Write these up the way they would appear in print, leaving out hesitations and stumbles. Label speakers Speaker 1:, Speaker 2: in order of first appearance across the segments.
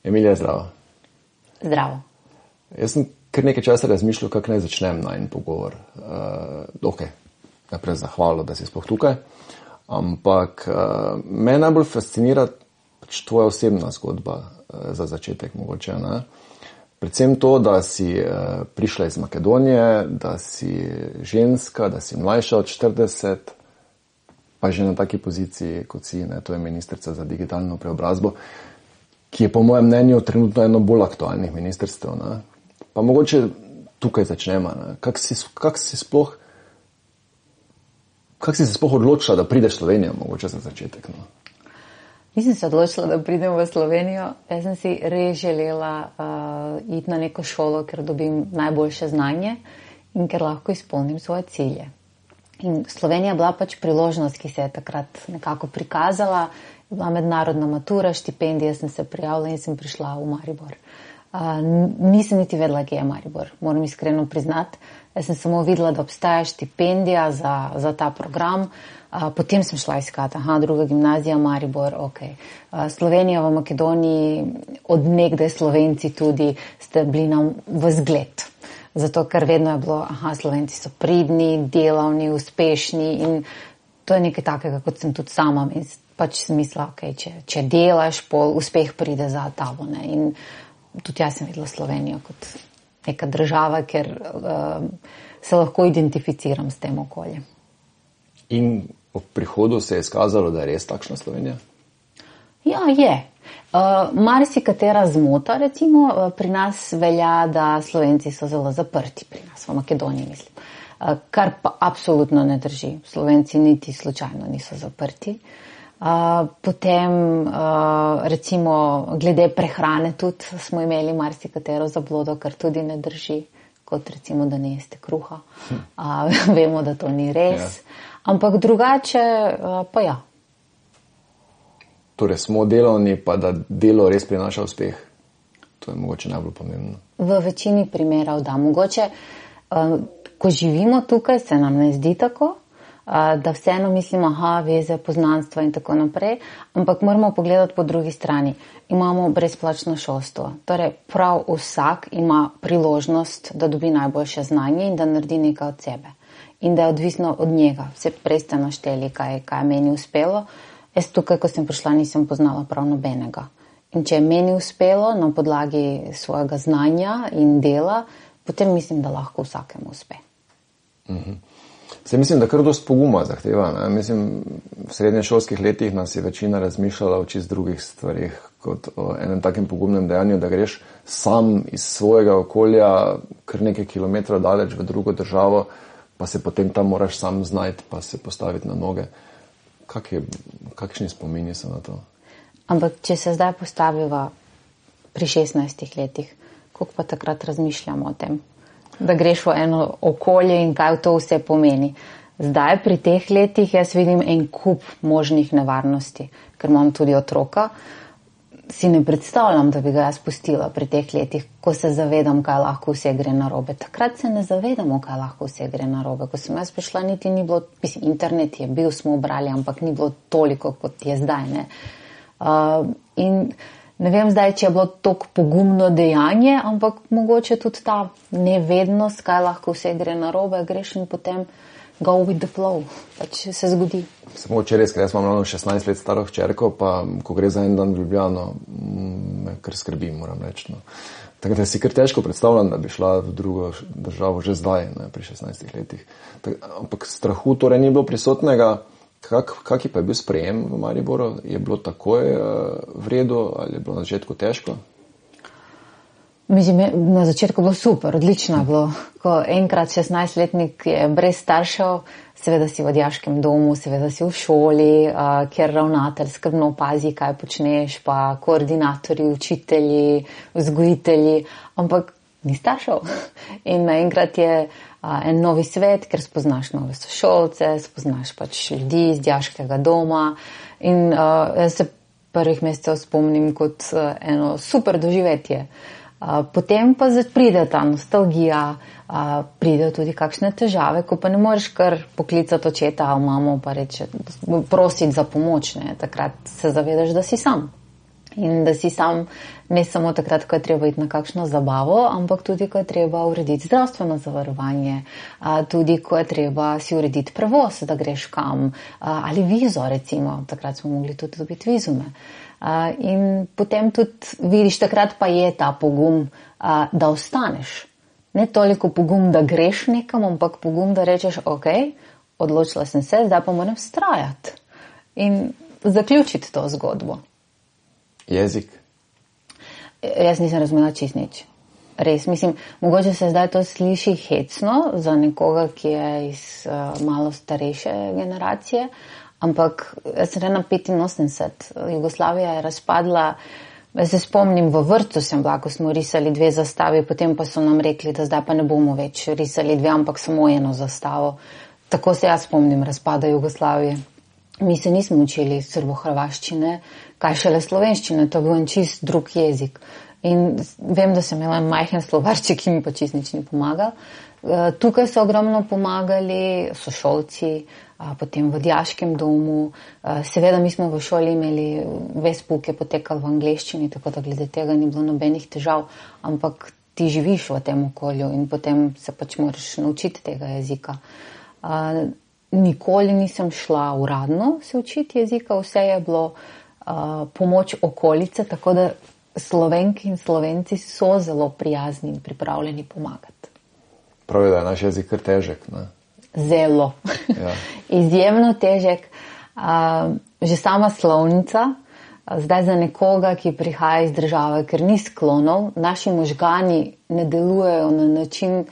Speaker 1: Emilija, zdravo.
Speaker 2: Zdravo.
Speaker 1: Jaz sem kar nekaj časa razmišljal, kako naj začnem najin pogovor. Najprej zahvalo, da si sploh tukaj. Ampak me najbolj fascinira pač tvoja osebna zgodba za začetek mogoče. Ne? Predvsem to, da si prišla iz Makedonije, da si ženska, da si mlajša od 40, pa že na taki poziciji, kot si, ne? To je ministrica za digitalno preobrazbo, ki je po mojem mnenju trenutno eno bolj aktualnih ministrstev. Ne? Pa mogoče tukaj začnemo. Kako si se sploh odločila, da prideš v Slovenijo, mogoče za začetek? No?
Speaker 2: Nisem se odločila, da pridem v Slovenijo. Jaz sem si res želela iti na neko šolo, ker dobim najboljše znanje in ker lahko izpolnim svoje cilje. In Slovenija je bila pač priložnost, ki se je takrat nekako prikazala. Bila mednarodna matura, štipendija, sem se prijavila in sem prišla v Maribor. Nisem niti vedela, kje je Maribor, moram iskreno priznati. Jaz sem samo videla, da obstaja štipendija za ta program. Potem sem šla iskati, druga gimnazija, Maribor, ok. Slovenija v Makedoniji, od nekdaj Slovenci tudi ste bili nam v zgled. Zato, ker vedno je bilo, Slovenci so pridni, delavni, uspešni in to je nekaj takega, kot sem tudi sama. In pač sem mislila, ok, če delaš, pol uspeh pride za tabo. Ne? In tudi jaz sem videla Slovenijo kot neka država, ker se lahko identificiram s tem okoljem.
Speaker 1: In v prihodu se je izkazalo, da je res takšna Slovenija?
Speaker 2: Ja, je. Marsikatera zmota, recimo, pri nas velja, da Slovenci so zelo zaprti, pri nas v Makedoniji, mislim. Kar pa absolutno ne drži. Slovenci niti slučajno niso zaprti. Potem, recimo, glede prehrane tudi smo imeli marsikatero zablodo, kar tudi ne drži, kot recimo, da ne jeste kruha. Vemo, da to ni res. Ampak drugače pa ja.
Speaker 1: Torej smo delovni, pa da delo res prinaša uspeh. To je mogoče najbolj pomembno.
Speaker 2: V večini primerov da. Mogoče, ko živimo tukaj, se nam ne zdi tako, da vseeno mislimo, veze, poznanstva in tako naprej, ampak moramo pogledati po drugi strani. Imamo brezplačno šolstvo. Torej, prav vsak ima priložnost, da dobi najboljše znanje in da naredi nekaj od sebe. In da je odvisno od njega. Vse prej ste našteli, kaj je meni uspelo. Jaz tukaj, ko sem prišla, nisem poznala prav nobenega. In če je meni uspelo na podlagi svojega znanja in dela, potem mislim, da lahko vsakemu uspe.
Speaker 1: Se mislim, da kar dost poguma zahteva. Ne? Mislim, v srednješolskih letih nas je večina razmišljala o čist drugih stvarih, kot o enem takem pogumnem dejanju, da greš sam iz svojega okolja kar nekaj kilometrov daleč v drugo državo, pa se potem tam moraš sam znajti, pa se postaviti na noge. Kakšni spomini so na to?
Speaker 2: Ampak, če se zdaj postaviva pri 16 letih, koliko pa takrat razmišljamo o tem? Da greš v eno okolje in kaj to vse pomeni. Zdaj, pri teh letih, jaz vidim en kup možnih nevarnosti, ker imam tudi otroka. Si ne predstavljam, da bi ga jaz pustila pri teh letih, ko se zavedam, kaj lahko vse gre narobe. Takrat se ne zavedamo, kaj lahko vse gre narobe. Ko sem jaz prišla, niti ni bilo, internet je bil, smo brali, ampak ni bilo toliko, kot je zdaj. Ne? In ne vem zdaj, če je bilo toliko pogumno dejanje, ampak mogoče tudi ta nevednost, kaj lahko vse gre narobe, greš in potem go with the flow, pač se zgodi.
Speaker 1: Samo včeraj, ker jaz imam 16 let staro hčerko, pa ko gre za en dan v Ljubljano, me kar skrbi, moram reči. No. Tako da si kar težko predstavljam, da bi šla v drugo državo že zdaj, ne, pri 16 letih. Ampak strahu torej ni bilo prisotnega. Kak je pa bil sprejem v Mariboru? Je bilo takoj v redu ali je bilo na začetku težko?
Speaker 2: Mislim, na začetku bilo super, odlično bilo. Ko enkrat 16-letnik je brez staršev, seveda si v odjaškem domu, seveda si v šoli, kjer ravnatelj skrbno opazi, kaj počneš, pa koordinatorji, učitelji, vzgojitelji, ampak ni staršev. In naenkrat je en novi svet, ker spoznaš nove sošolce, spoznaš pač ljudi iz odjaškega doma in jaz se prvih mesecev spomnim kot eno super doživetje. Potem pa pride ta nostalgija, pridejo tudi kakšne težave, ko pa ne moreš kar poklicati očeta ali mamo pa reči, prositi za pomoč, ne. Takrat se zavedaš, da si sam. In da si sam ne samo takrat, ko je treba iti na kakšno zabavo, ampak tudi, ko je treba urediti zdravstveno zavarovanje, tudi, ko je treba si urediti prevoz, da greš kam, ali vizo, recimo, takrat smo mogli tudi dobiti vizume. In potem tudi vidiš, takrat pa je ta pogum, da ostaneš. Ne toliko pogum, da greš nekam, ampak pogum, da rečeš, ok, odločila sem se, zdaj pa moram vztrajati in zaključiti to zgodbo.
Speaker 1: Jezik?
Speaker 2: Jaz nisem razumela čist nič. Res, mislim, mogoče se zdaj to sliši hecno za nekoga, ki je iz malo starejše generacije, ampak jaz sem na 85, Jugoslavija je razpadla, jaz se spomnim, v vrtu sem bila, ko smo risali 2 zastavi, potem pa so nam rekli, da zdaj pa ne bomo več risali 2, ampak samo 1 zastavo. Tako se jaz spomnim razpada Jugoslavije. Mi se nismo učili srbohrvaščine, kaj šele slovenščine, to je bil en čist drug jezik. In vem, da sem imela majhen slovarček, ki mi pa čist nič ni pomagal. Tukaj so ogromno pomagali sošolci, potem v dijaškem domu. Seveda mi smo v šoli imeli, ves pouk je potekal v angleščini, tako da glede tega ni bilo nobenih težav, ampak ti živiš v tem okolju in potem se pač moraš naučiti tega jezika. Nikoli nisem šla uradno se učiti jezika, vse je bilo pomoč okolice, tako da Slovenki in Slovenci so zelo prijazni in pripravljeni pomagati.
Speaker 1: Pravi, da je naš jezik kar težek, ne?
Speaker 2: Zelo. Ja. Izjemno težek. Že sama slovnica, zdaj za nekoga, ki prihaja iz države, ker ni sklonov, naši možgani ne delujejo na način,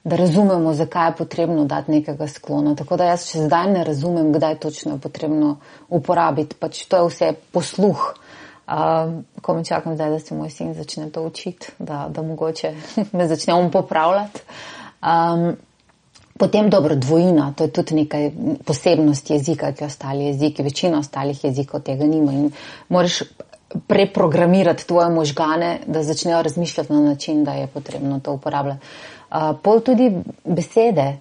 Speaker 2: da razumemo, zakaj je potrebno dati nekega sklona. Tako da jaz še zdaj ne razumem, kdaj točno je potrebno uporabiti. Pač to je vse posluh. Ko me čakam zdaj, da se moj sin začne to učiti, da mogoče me začne on popravljati. Potem dobro, dvojina, to je tudi nekaj posebnost jezika, ki ostali jeziki, večina ostalih jezikov tega nima in moraš preprogramirati tvoje možgane, da začnejo razmišljati na način, da je potrebno to uporabljati. Pol tudi besede,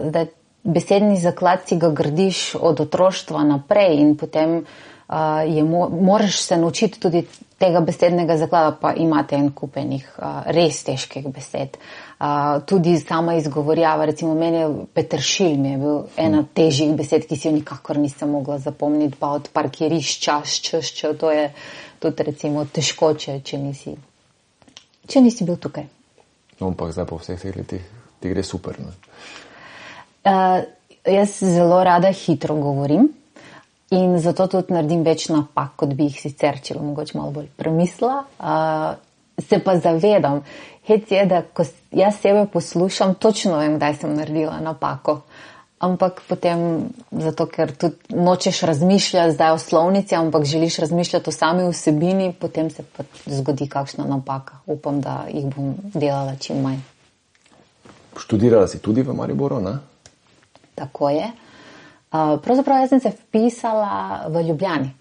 Speaker 2: da besedni zaklad si ga gradiš od otroštva naprej in potem moraš se naučiti tudi tega besednega zaklada, pa imate en kupenih res težkih besed. Tudi sama izgovorjava, recimo meni je peteršilj mi je bil ena težjih besed, ki si jo nikakor nisem mogla zapomniti, pa od parkirišča, to je tudi recimo težko, če nisi bil tukaj.
Speaker 1: No, ampak zdaj po vseh teh letih ti gre super, ne?
Speaker 2: Jaz zelo rada hitro govorim in zato tudi naredim več napak, kot bi jih sicer, če mogoče malo bolj premislila. Se pa zavedam, hec je, da ko jaz sebe poslušam, točno vem, kdaj sem naredila napako. Ampak potem, zato ker tudi nočeš razmišljati zdaj o slovnici, ampak želiš razmišljati o sami vsebini, potem se pa zgodi kakšna napaka. Upam, da jih bom delala čim manj.
Speaker 1: Študirala si tudi v Mariboru, ne?
Speaker 2: Tako je. Pravzaprav jaz sem se vpisala v Ljubljani.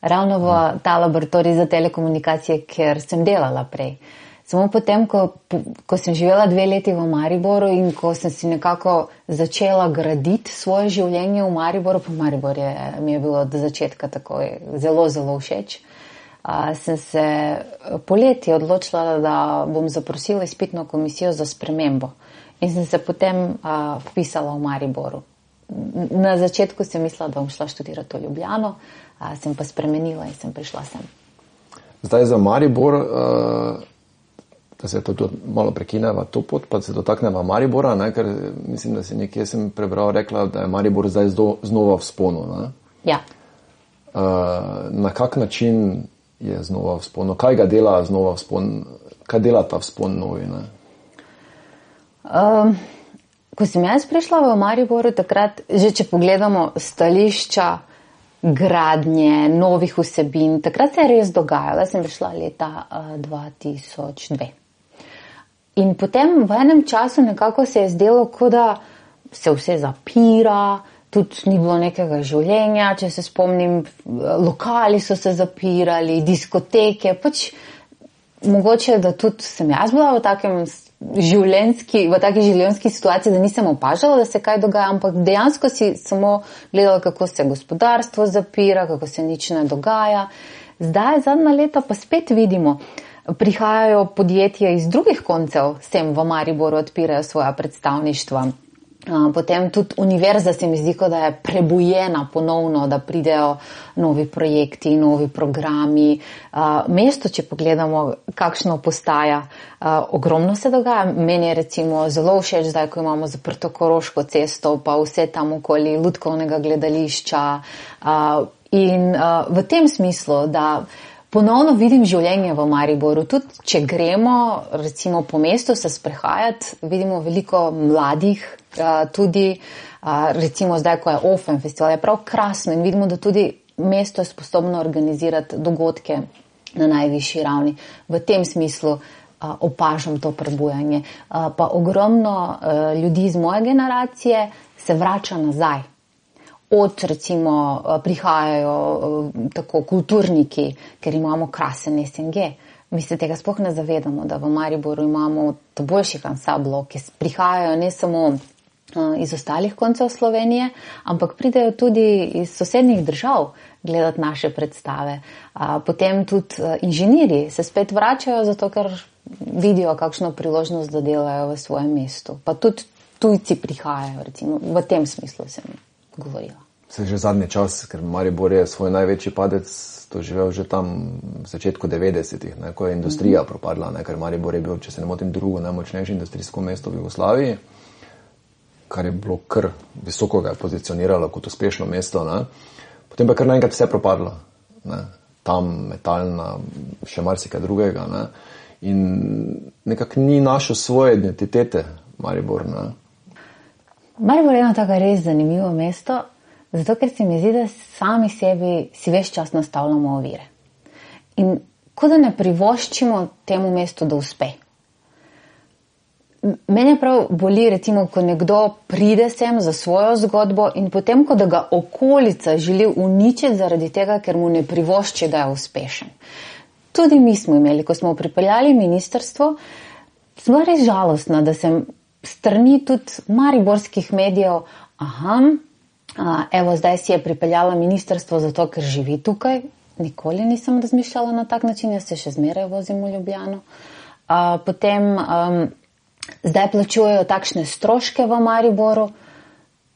Speaker 2: Ravno v ta laboratorij za telekomunikacije, ker sem delala prej. Samo potem, ko sem živela 2 leti v Mariboru in ko sem si nekako začela graditi svoje življenje v Mariboru, pa Maribor mi je bilo od začetka tako zelo, zelo všeč, sem se poleti odločila, da bom zaprosila izpitno komisijo za spremembo. In sem se potem vpisala v Mariboru. Na začetku sem mislila, da bom šla študirati v Ljubljano, sem pa spremenila in sem prišla sem.
Speaker 1: Zdaj za Maribor, da se to malo prekineva to pot, pa se dotakneva Maribora, ne? Ker mislim, da si nekje sem prebral, rekla, da je Maribor zdaj znova v sponu. Ne?
Speaker 2: Ja.
Speaker 1: Na kak način je znova v sponu? Kaj ga dela znova v spon? Kaj dela ta vzpon novi? Ne?
Speaker 2: Ko sem jaz prišla v Mariboru, takrat, že če pogledamo stališča, gradnje, novih vsebin, takrat se je res dogajalo. Jaz sem prišla leta 2002. In potem v enem času nekako se je zdelo, kot da se vse zapira, tudi ni bilo nekega življenja, če se spomnim, lokali so se zapirali, diskoteke, pač mogoče, da tudi sem jaz bila v taki življenjski situaciji, da nisem opažala, da se kaj dogaja, ampak dejansko si samo gledala, kako se gospodarstvo zapira, kako se nič ne dogaja. Zdaj, zadnja leta pa spet vidimo, prihajajo podjetja iz drugih koncev, sem v Mariboru odpirajo svoja predstavništva. Potem tudi univerza se mi zdi, da je prebujena ponovno, da pridejo novi projekti, novi programi. Mesto, če pogledamo, kakšno postaja, ogromno se dogaja. Meni je recimo zelo všeč zdaj, ko imamo zaprto Koroško cesto, pa vse tam okoli Lutkovnega gledališča. In v tem smislu, da ponovno vidim življenje v Mariboru. Tudi če gremo recimo po mestu se sprehajati, vidimo veliko mladih, tudi recimo zdaj, ko je Ofen festival, je prav krasno in vidimo, da tudi mesto je sposobno organizirati dogodke na najvišji ravni. V tem smislu opažam to prebujanje. Pa ogromno ljudi iz moje generacije se vrača nazaj. Od recimo prihajajo tako kulturniki, ker imamo krasen SNG. Mi se tega sploh ne zavedamo, da v Mariboru imamo boljših ansamblov, ki prihajajo ne samo iz ostalih koncev Slovenije, ampak pridejo tudi iz sosednjih držav gledati naše predstave. Potem tudi inženirji se spet vračajo, zato ker vidijo kakšno priložnost, da delajo v svojem mestu. Pa tudi tujci prihajajo, recimo, v tem smislu sem govorila.
Speaker 1: Se že zadnji čas, ker Maribor je svoj največji padec doživel že tam v začetku 90-ih, ko je industrija propadla, ker Maribor je bil, če se ne motim, drugo najmočnejše industrijsko mesto v Jugoslaviji, kar je bilo kar visoko ga je pozicioniralo kot uspešno mesto. Potem pa kar naenkrat vse propadlo. Tam metalna, še marsikaj drugega. In nekako ni našel svoje identitete Maribor.
Speaker 2: Maribor je eno tako res zanimivo mesto, zato ker se mi zdi, da sami sebi si ves čas nastavljamo ovire. In ko da ne privoščimo temu mestu, da uspe. Mene prav boli, recimo, ko nekdo pride sem za svojo zgodbo in potem, ko da ga okolica želi uničiti zaradi tega, ker mu ne privošči, da je uspešen. Tudi mi smo imeli, ko smo pripeljali ministrstvo, smo res žalostna, da sem strani tudi mariborskih medijev, evo zdaj si je pripeljala ministrstvo zato, ker živi tukaj. Nikoli nisem razmišljala na tak način, jaz se še zmeraj vozim v Ljubljano. Potem zdaj plačujejo takšne stroške v Mariboru.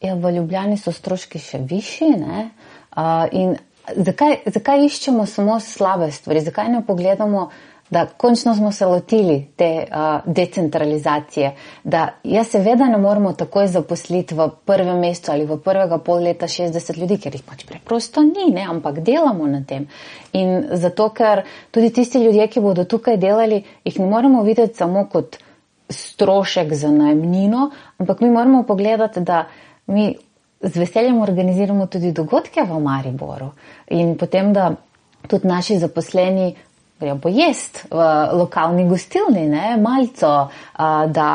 Speaker 2: V Ljubljani so stroški še višji, ne? In zakaj iščemo samo slabe stvari? Zakaj ne pogledamo, da končno smo se lotili te decentralizacije, da seveda ne moramo takoj zaposliti v prvem mesecu ali v prvega pol leta 60 ljudi, ker jih pač preprosto ni, ne? Ampak delamo na tem. In zato, ker tudi tisti ljudje, ki bodo tukaj delali, jih ne moramo videti samo kot strošek za najemnino, ampak mi moramo pogledati, da mi z veseljem organiziramo tudi dogodke v Mariboru in potem, da tudi naši zaposleni grejo pojest v lokalni gostilni, malco, da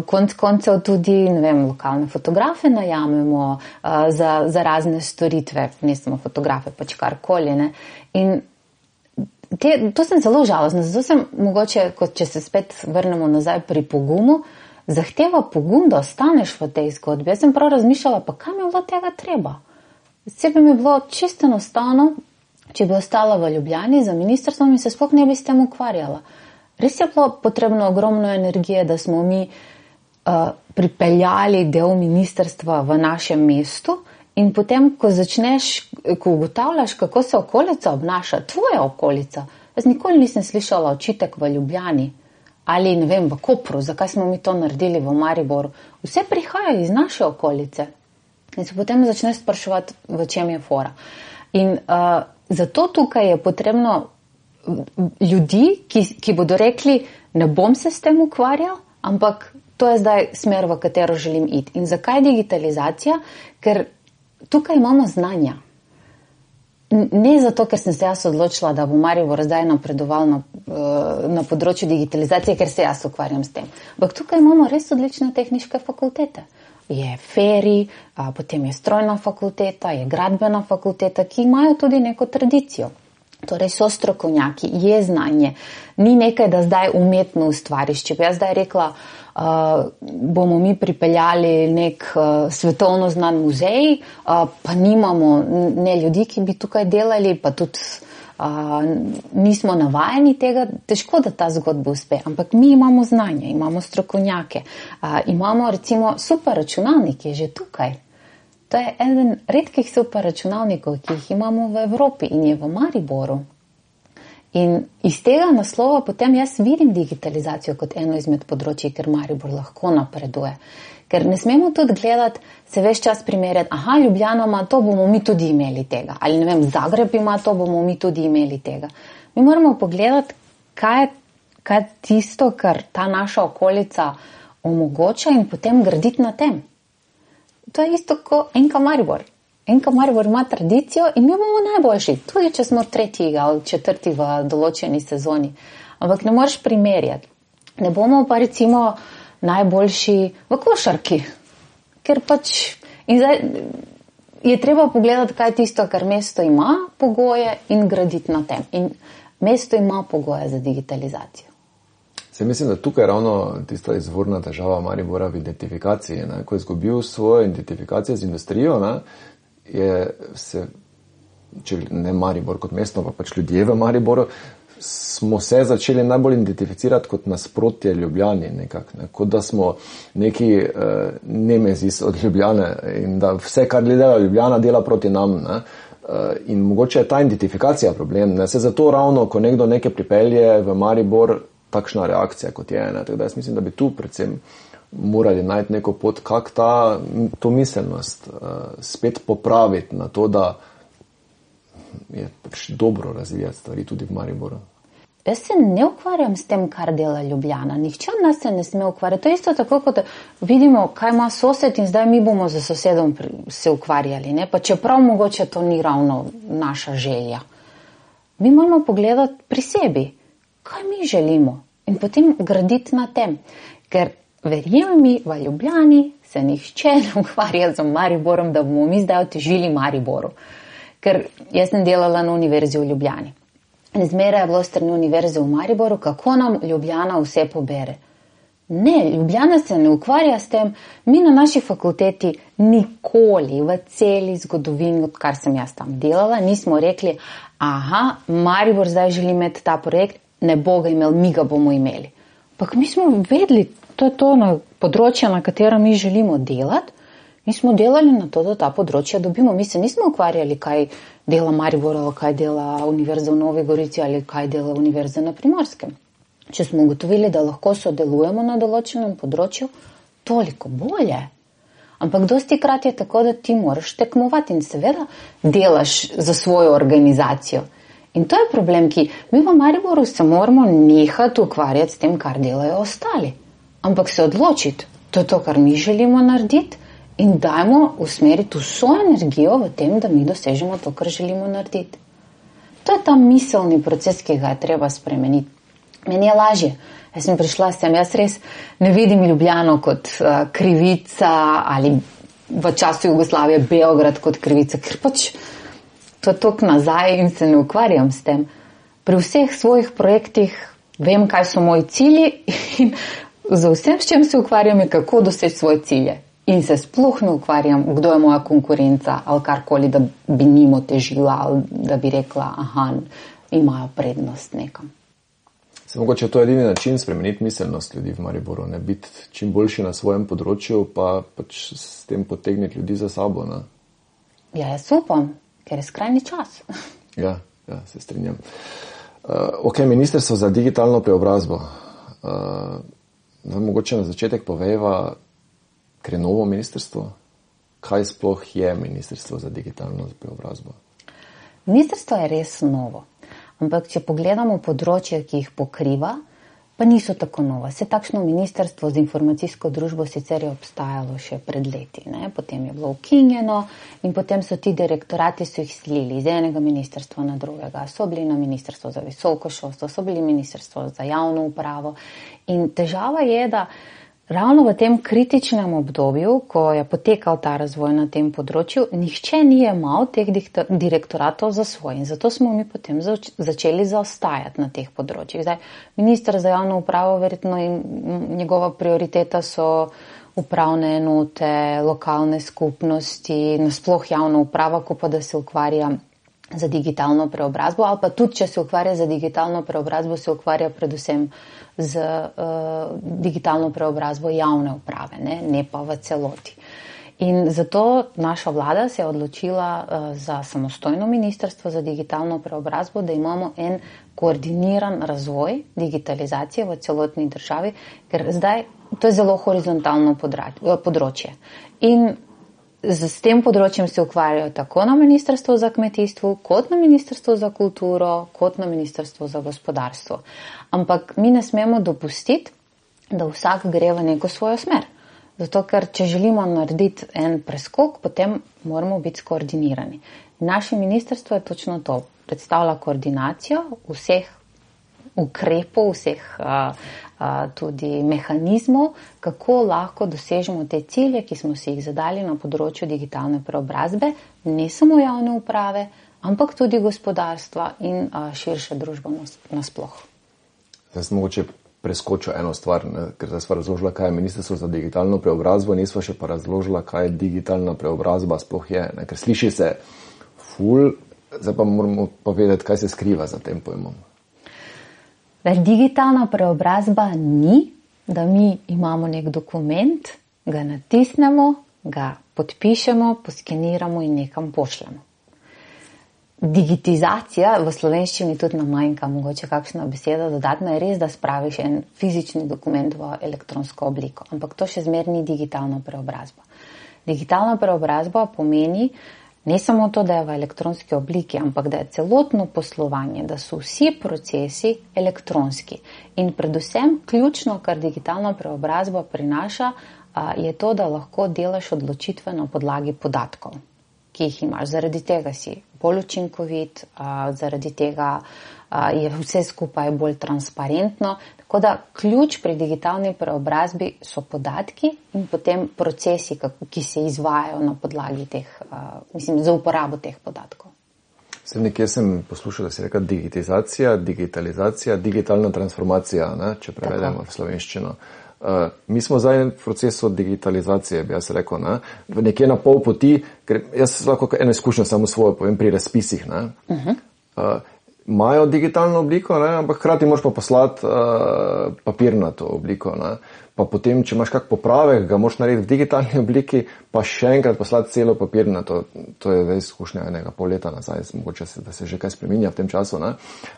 Speaker 2: konec koncev tudi, lokalne fotografe najamemo za razne storitve, ne samo fotografe, pač karkoli. In to sem zelo žalostna, zato sem mogoče, če se spet vrnemo nazaj pri pogumu, zahteva pogum, da ostaneš v tej zgodbi. Jaz sem prav razmišljala, pa kam je bilo tega treba? Sebi mi je bilo čisto enostavno, če bi ostala v Ljubljani za ministrstvom in se sploh ne bi s tem ukvarjala. Res je bilo potrebno ogromno energije, da smo mi pripeljali del ministrstva v našem mestu in potem, ko ugotavljaš, kako se okolica obnaša, tvoja okolica. Jaz nikoli nisem slišala očitek v Ljubljani ali, v Kopru, zakaj smo mi to naredili v Mariboru. Vse prihaja iz naše okolice. In se potem začneš spraševati, v čem je fora. In zato tukaj je potrebno ljudi, ki bodo rekli, ne bom se s tem ukvarjal, ampak to je zdaj smer, v katero želim iti. In zakaj digitalizacija? Ker tukaj imamo znanja. Ne zato, ker sem se jaz odločila, da bo Maribor zdaj napredoval na področju digitalizacije, ker se jaz ukvarjam s tem. Ampak tukaj imamo res odlične tehniške fakultete. Je FERI, potem je strojna fakulteta, je gradbena fakulteta, ki imajo tudi neko tradicijo. Torej so strokovnjaki, je znanje. Ni nekaj, da zdaj umetno ustvariš. Če bi jaz zdaj rekla, bomo mi pripeljali nek svetovno znan muzej, pa nimamo ne ljudi, ki bi tukaj delali, pa tudi nismo navajeni tega, težko, da ta zgodba uspe. Ampak mi imamo znanje, imamo strokovnjake, imamo recimo super računalnik, ki je že tukaj. To je eden redkih super računalnikov, ki jih imamo v Evropi in je v Mariboru. In iz tega naslova potem jaz vidim digitalizacijo kot eno izmed področji, ker Maribor lahko napreduje. Ker ne smemo tudi gledati, se ves čas primerjati, Ljubljana ima to, bomo mi tudi imeli tega. Ali ne vem, Zagreb ima to, bomo mi tudi imeli tega. Mi moramo pogledati, kaj je tisto, kar ta naša okolica omogoča in potem graditi na tem. To je isto kot NK Maribor. NK Maribor ima tradicijo in mi bomo najboljši, tudi če smo 3. ali 4. v določeni sezoni. Ampak ne moreš primerjati. Ne bomo pa recimo najboljši v košarki, ker in zdaj je treba pogledati, kaj je tisto, kar mesto ima pogoje in graditi na tem. In mesto ima pogoje za digitalizacijo.
Speaker 1: Se mislim, da tukaj ravno tista izvorna težava Maribora v identifikaciji. Ko je izgubil svojo identifikacijo z industrijo, če ne Maribor kot mesto, pa ljudje v Mariboru, smo se začeli najbolj identificirati kot nasprotje Ljubljani nekako. Kot da smo neki nemezis od Ljubljane in da vse, kar dela Ljubljana, dela proti nam. In mogoče je ta identifikacija problem. Se zato ravno, ko nekdo nekaj pripelje v Maribor, takšna reakcija kot je. Tako da jaz mislim, da bi tu predvsem morali najti neko pot, kako to miselnost spet popraviti na to, da je dobro razvijati stvari tudi v Mariboru.
Speaker 2: Jaz se ne ukvarjam s tem, kar dela Ljubljana. Nihče od nas se ne sme ukvarjati. To je isto tako, kot vidimo, kaj ima sosed in zdaj mi bomo za sosedom se ukvarjali. Pa čeprav mogoče to ni ravno naša želja. Mi moramo pogledati pri sebi, kaj mi želimo in potem graditi na tem. Ker verjemi mi, v Ljubljani se nihče ne ukvarja z Mariborom, da bomo mi zdaj otežili Mariboru. Ker jaz sem delala na univerzi v Ljubljani. In zmeraj je bilo strani univerze v Mariboru, kako nam Ljubljana vse pobere. Ne, Ljubljana se ne ukvarja s tem. Mi na naši fakulteti nikoli v celi zgodovini, odkar sem jaz tam delala, nismo rekli, Maribor zdaj želi imeti ta projekt, ne bo ga imel, mi ga bomo imeli. Ampak mi smo vedeli, to je to na področje, na katero mi želimo delati. Mi smo delali na to, da ta področja dobimo. Mi se nismo ukvarjali, kaj dela Maribor, ali kaj dela Univerza v Novi Gorici, ali kaj dela Univerza na Primorskem. Če smo ugotovili, da lahko sodelujemo na določenem področju, toliko bolje. Ampak dostikrat je tako, da ti moraš tekmovati in seveda delaš za svojo organizacijo. In to je problem, ki mi v Mariboru se moramo nehati ukvarjati s tem, kar delajo ostali. Ampak se odločiti, to je to, kar mi želimo narediti, in dajmo usmeriti vso energijo v tem, da mi dosežemo to, kar želimo narediti. To je ta miselni proces, ki ga je treba spremeniti. Meni je lažje. Jaz sem prišla sem, jaz res ne vidim Ljubljano kot krivica ali v času Jugoslavije Beograd kot krivica, ker to je tok nazaj in se ne ukvarjam s tem. Pri vseh svojih projektih vem, kaj so moji cilji in za vsem, s čem se ukvarjam, je kako doseči svoje cilje. In se sploh ne ukvarjam, kdo je moja konkurenca ali karkoli, da bi njim otežila ali da bi rekla, imajo prednost nekam.
Speaker 1: Se mogoče to je edini način spremeniti miselnost ljudi v Mariboru, ne biti čim boljši na svojem področju, pa s tem potegniti ljudi za sabo. Ne?
Speaker 2: Ja, jaz upam, ker je skrajni čas.
Speaker 1: Ja, se strinjam. Ministrstvo za digitalno preobrazbo. Mogoče na začetek povejva, ker je novo ministrstvo, kaj sploh je Ministrstvo za digitalno preobrazbo?
Speaker 2: Ministrstvo je res novo, ampak če pogledamo področje, ki jih pokriva, pa niso tako nova. Se takšno ministrstvo z informacijsko družbo sicer je obstajalo še pred leti, potem je bilo ukinjeno in potem so ti direktorati so jih selili iz enega ministrstva na drugega. So bili na Ministrstvo za visoko šolstvo, so bili Ministrstvo za javno upravo in težava je, da ravno v tem kritičnem obdobju, ko je potekal ta razvoj na tem področju, nihče ni jemal teh direktoratov za svoj. In zato smo mi potem začeli zaostajati na teh področjih. Zdaj, minister za javno upravo, verjetno njegova prioriteta so upravne enote, lokalne skupnosti, nasploh javna uprava, ko pa da se ukvarja za digitalno preobrazbo, ali pa tudi, če se ukvarja za digitalno preobrazbo, se ukvarja predvsem z digitalno preobrazbo javne uprave, ne pa v celoti. In zato naša vlada se je odločila za samostojno ministrstvo za digitalno preobrazbo, da imamo en koordiniran razvoj digitalizacije v celotni državi, ker zdaj to je zelo horizontalno področje. In s tem področjem se ukvarjajo tako na Ministrstvu za kmetijstvo, kot na Ministrstvu za kulturo, kot na Ministrstvu za gospodarstvo. Ampak mi ne smemo dopustiti, da vsak gre v neko svojo smer. Zato, ker če želimo narediti en preskok, potem moramo biti skoordinirani. Naše ministrstvo je točno to. Predstavlja koordinacijo vseh ukrepov, vseh tudi mehanizmov, kako lahko dosežemo te cilje, ki smo si jih zadali na področju digitalne preobrazbe, ne samo javne uprave, ampak tudi gospodarstva in širše družbe nasploh.
Speaker 1: Zdaj sem mogoče preskočil eno stvar, ker zdaj sva razložila, kaj je Ministrstvo za digitalno preobrazbo, nisva še pa razložila, kaj digitalna preobrazba sploh je. Ker sliši se ful, zdaj pa moramo povedati, kaj se skriva za tem pojmom.
Speaker 2: Digitalna preobrazba ni, da mi imamo nek dokument, ga natisnemo, ga podpišemo, poskeniramo in nekam pošljemo. Digitizacija, v slovenščini tudi nam manjka mogoče kakšna beseda dodatna, je res, da spraviš en fizični dokument v elektronsko obliko, ampak to še zmeraj ni digitalna preobrazba. Digitalna preobrazba pomeni ne samo to, da je v elektronski obliki, ampak da je celotno poslovanje, da so vsi procesi elektronski. In predvsem ključno, kar digitalna preobrazba prinaša, je to, da lahko delaš odločitve na podlagi podatkov, ki jih imaš. Zaradi tega si bolj učinkovit, zaradi tega je vse skupaj bolj transparentno. Tako da ključ pri digitalni preobrazbi so podatki in potem procesi, ki se izvajajo na podlagi teh, za uporabo teh podatkov.
Speaker 1: Nekje sem poslušal, da si rekel digitalizacija, digitalna transformacija, če prevedemo v slovenščino. Mi smo zdaj v procesu digitalizacije, bi jaz rekel, nekje na pol poti, ker jaz lahko eno izkušnjo samo svojo povem pri razpisih. Imajo digitalno obliko, ampak hkrati moraš pa poslati papirnato obliko. Pa potem, če imaš kak popravek, ga moraš narediti v digitalni obliki, pa še enkrat poslati celo papirnato. To je zdaj izkušnja enega pol leta nazaj, mogoče da se že kaj spreminja v tem času.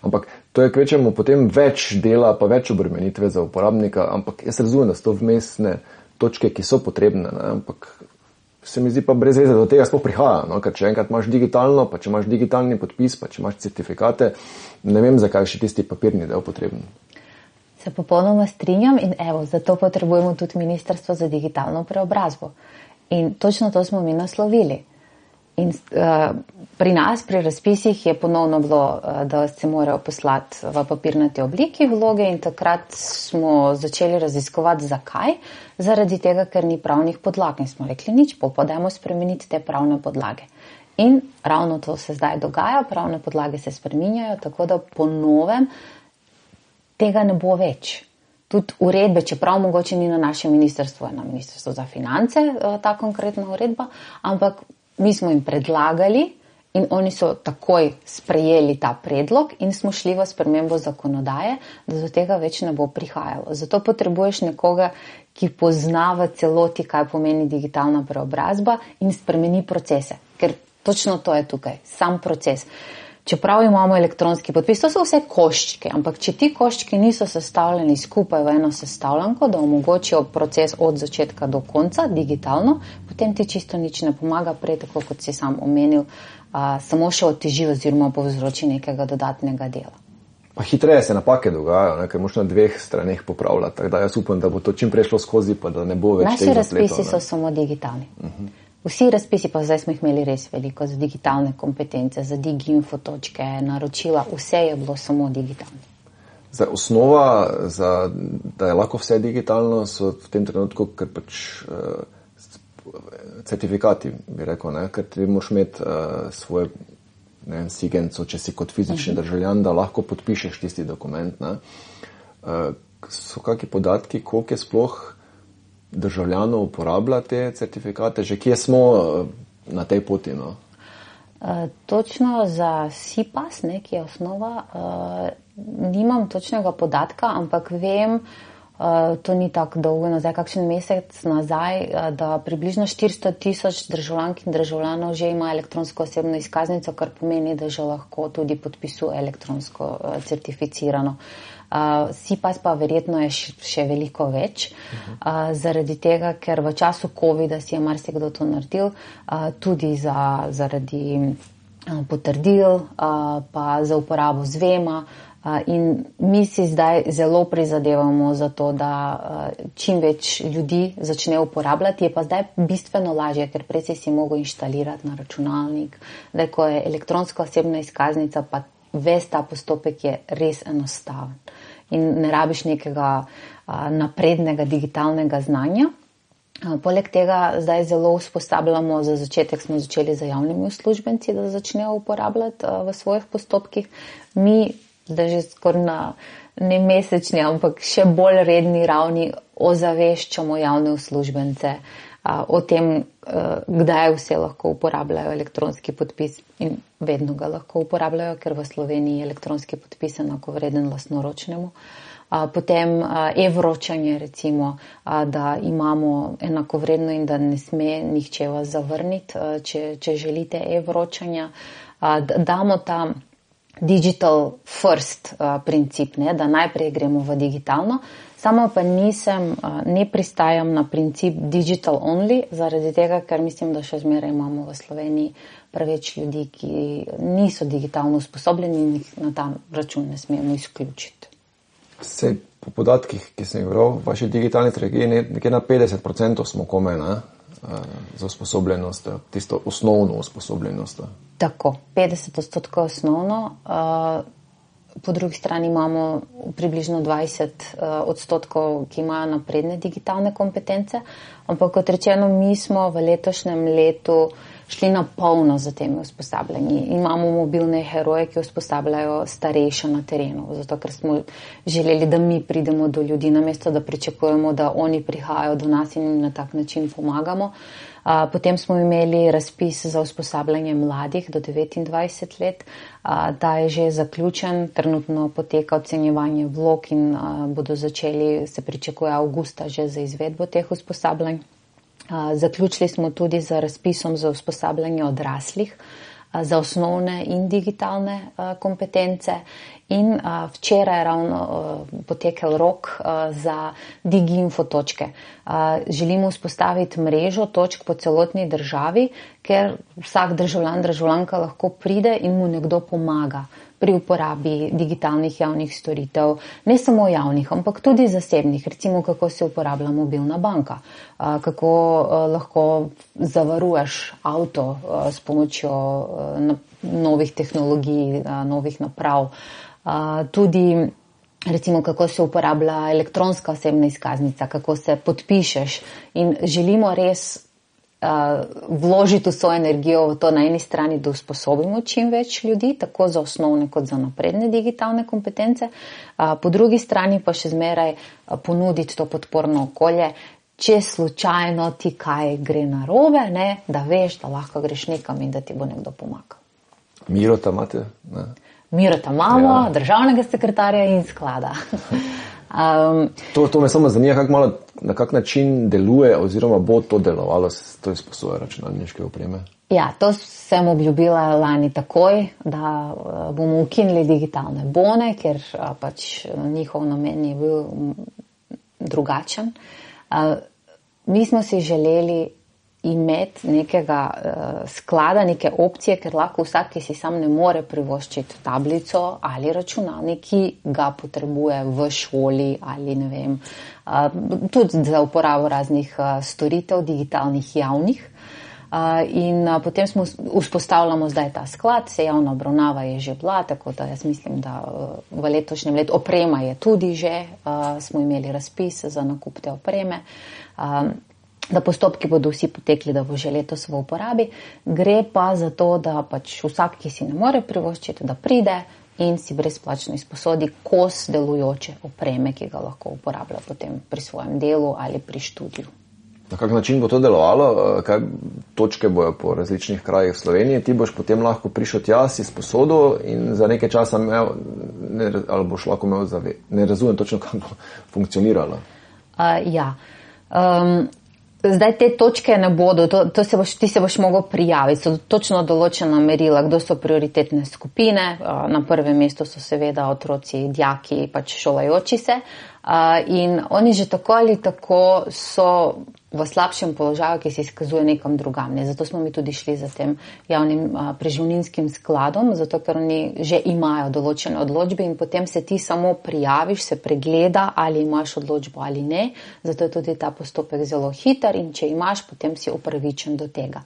Speaker 1: Ampak to je kvečemo potem več dela, pa več obremenitve za uporabnika, ampak jaz razumem, da so to vmesne točke, ki so potrebne, ampak se mi zdi pa brez veze, do tega sploh prihaja, ker če enkrat imaš digitalno, pa če imaš digitalni podpis, pa če imaš certifikate, ne vem, zakaj še tisti papirni del potreben.
Speaker 2: Se popolnoma strinjam in zato potrebujemo tudi Ministrstvo za digitalno preobrazbo. In točno to smo mi naslovili. In pri nas, pri razpisih je ponovno bilo, da se morajo poslati v papirnati obliki vloge in takrat smo začeli raziskovati, zakaj. Zaradi tega, ker ni pravnih podlag in smo rekli nič, pa dajmo spremeniti te pravne podlage. In ravno to se zdaj dogaja, pravne podlage se spreminjajo, tako da po novem tega ne bo več. Tudi uredbe, čeprav mogoče ni na našem ministrstvu, je na Ministrstvu za finance ta konkretna uredba, ampak mi smo jim predlagali in oni so takoj sprejeli ta predlog in smo šli v spremembo zakonodaje, da do tega več ne bo prihajalo. Zato potrebuješ nekoga, ki pozna v celoti, kaj pomeni digitalna preobrazba in spremeni procese. Ker točno to je tukaj, sam proces. Čeprav imamo elektronski podpis, to so vse koščke, ampak če ti koščki niso sestavljeni skupaj v eno sestavljanko, da omogočijo proces od začetka do konca digitalno, potem ti čisto nič ne pomaga, prej tako kot si sam omenil, samo še oteži oziroma povzroči nekega dodatnega dela.
Speaker 1: Pa hitreje se napake dogajajo, ker moš na dveh straneh popravljati, tako da jaz upam, da bo to čim prešlo skozi, pa da ne bo več teh zapletov.
Speaker 2: Naši razpisi so samo digitalni. Vsi razpisi, pa zdaj smo jih imeli res veliko, za digitalne kompetence, za diginfo točke, naročila, vse je bilo samo digitalno.
Speaker 1: Zdaj, osnova, da je lahko vse digitalno, so v tem trenutku, ker pač certifikati, bi rekel, ker ti moraš imeti svoje sigenco, če si kot fizični državljan, da lahko podpišeš tisti dokument. So kakšni podatki, koliko je sploh državljanov uporablja te certifikate, že kje smo na tej poti?
Speaker 2: Točno za SIPAS, ki je osnova, nimam točnega podatka, ampak vem, to ni tako dolgo nazaj, kakšen mesec nazaj, da približno 400,000 državljank in državljanov že ima elektronsko osebno izkaznico, kar pomeni, da že lahko tudi podpisuje elektronsko certificirano. SIPAS pa verjetno je še veliko več, zaradi tega, ker v času COVID-a si je marsikdo to naredil, tudi zaradi potrdil, pa za uporabo zvema. In mi si zdaj zelo prizadevamo za to, da čim več ljudi začne uporabljati. Je pa zdaj bistveno lažje, ker prej si mogel inštalirati na računalnik. Zdaj, ko je elektronska osebna izkaznica, pa ves ta postopek je res enostaven. In ne rabiš nekega naprednega digitalnega znanja. Poleg tega zdaj zelo usposabljamo, za začetek smo začeli za javnimi uslužbenci, da začnejo uporabljati v svojih postopkih. Mi zdaj že skoraj na ne mesečni, ampak še bolj redni ravni ozaveščamo javne uslužbence o tem, kdaj vse lahko uporabljajo elektronski podpis in vedno ga lahko uporabljajo, ker v Sloveniji je elektronski podpis enakovreden lastnoročnemu. Potem e-vročanje recimo, da imamo enakovredno in da ne sme nihče vas zavrniti, če želite e-vročanja. Damo ta digital first princip, da najprej gremo v digitalno. Samo pa ne pristajam na princip digital only, zaradi tega, ker mislim, da še zmeraj imamo v Sloveniji preveč ljudi, ki niso digitalno usposobljeni in jih na ta račun ne smemo izključiti.
Speaker 1: Sej po podatkih, ki sem jih bral, vaši digitalni strategiji nekje na 50% smo komaj za usposobljenost, tisto osnovno usposobljenost.
Speaker 2: Tako, 50% osnovno. Po drugi strani imamo približno 20%, ki imajo napredne digitalne kompetence, ampak kot rečeno, mi smo v letošnjem letu šli na polno za temi usposabljanji. Imamo mobilne heroje, ki usposabljajo starejše na terenu, zato ker smo želeli, da mi pridemo do ljudi, namesto da pričakujemo, da oni prihajajo do nas in na tak način pomagamo. Potem smo imeli razpis za usposabljanje mladih do 29 let, ta je že zaključen, trenutno poteka ocenjevanje vlog in bodo začeli, se pričakuje avgusta že za izvedbo teh usposabljanj. Zaključili smo tudi z razpisom za usposabljanje odraslih za osnovne in digitalne kompetence in včeraj je ravno potekel rok za DigiInfo točke. Želimo vzpostaviti mrežo točk po celotni državi, ker vsak državljanka lahko pride in mu nekdo pomaga pri uporabi digitalnih javnih storitev, ne samo javnih, ampak tudi zasebnih, recimo kako se uporablja mobilna banka, kako lahko zavaruješ avto s pomočjo novih tehnologij, novih naprav, tudi recimo kako se uporablja elektronska osebna izkaznica, kako se podpišeš in želimo res vložiti vso energijo v to na eni strani, da usposobimo čim več ljudi, tako za osnovne kot za napredne digitalne kompetence, po drugi strani pa še zmeraj ponuditi to podporno okolje, če slučajno ti kaj gre narobe, da veš, da lahko greš nekam in da ti bo nekdo pomagal.
Speaker 1: Mirota imate?
Speaker 2: Mirota imamo, državnega sekretarja in sklada.
Speaker 1: To me samo zanima, na kak način deluje oziroma bo to delovalo, to izposoja računalniške opreme. Ja,
Speaker 2: to sem obljubila lani takoj, da bomo ukinili digitalne bone, ker pač njihov namen je bil drugačen. Mi smo si želeli imeti nekega sklada, neke opcije, ker lahko vsak, ki si sam ne more privoščiti tablico ali računalnik, ki ga potrebuje v šoli ali ne vem, tudi za uporabo raznih storitev digitalnih javnih. In potem vzpostavljamo zdaj ta sklad, se javna obravnava je že bila, tako da jaz mislim, da v letošnjem letu oprema je tudi že, smo imeli razpis za nakup te opreme, da postopki bodo vsi potekli, da bo že letos v uporabi. Gre pa za to, da pač vsak, ki si ne more privoščiti, da pride in si brezplačno izposodi kos delujoče opreme, ki ga lahko uporablja potem pri svojem delu ali pri študiju.
Speaker 1: Na kak način bo to delovalo? Kaj točke bojo po različnih krajih v Sloveniji? Ti boš potem lahko prišel tja, si sposodo in za nekaj časa imel, ali boš lahko imel ne razumem točno, kako bo funkcioniralo.
Speaker 2: Zdaj te točke ne bodo, ti se boš mogel prijaviti, so točno določena merila, kdo so prioritetne skupine, na prvem mestu so seveda otroci, dijaki, pač šolajoči se in oni že tako ali tako so v slabšem položaju, ki se izkazuje nekam drugam. Zato smo mi tudi šli za tem javnim preživninskim skladom, zato ker oni že imajo določene odločbe in potem se ti samo prijaviš, se pregleda, ali imaš odločbo ali ne. Zato je tudi ta postopek zelo hiter in če imaš, potem si upravičen do tega.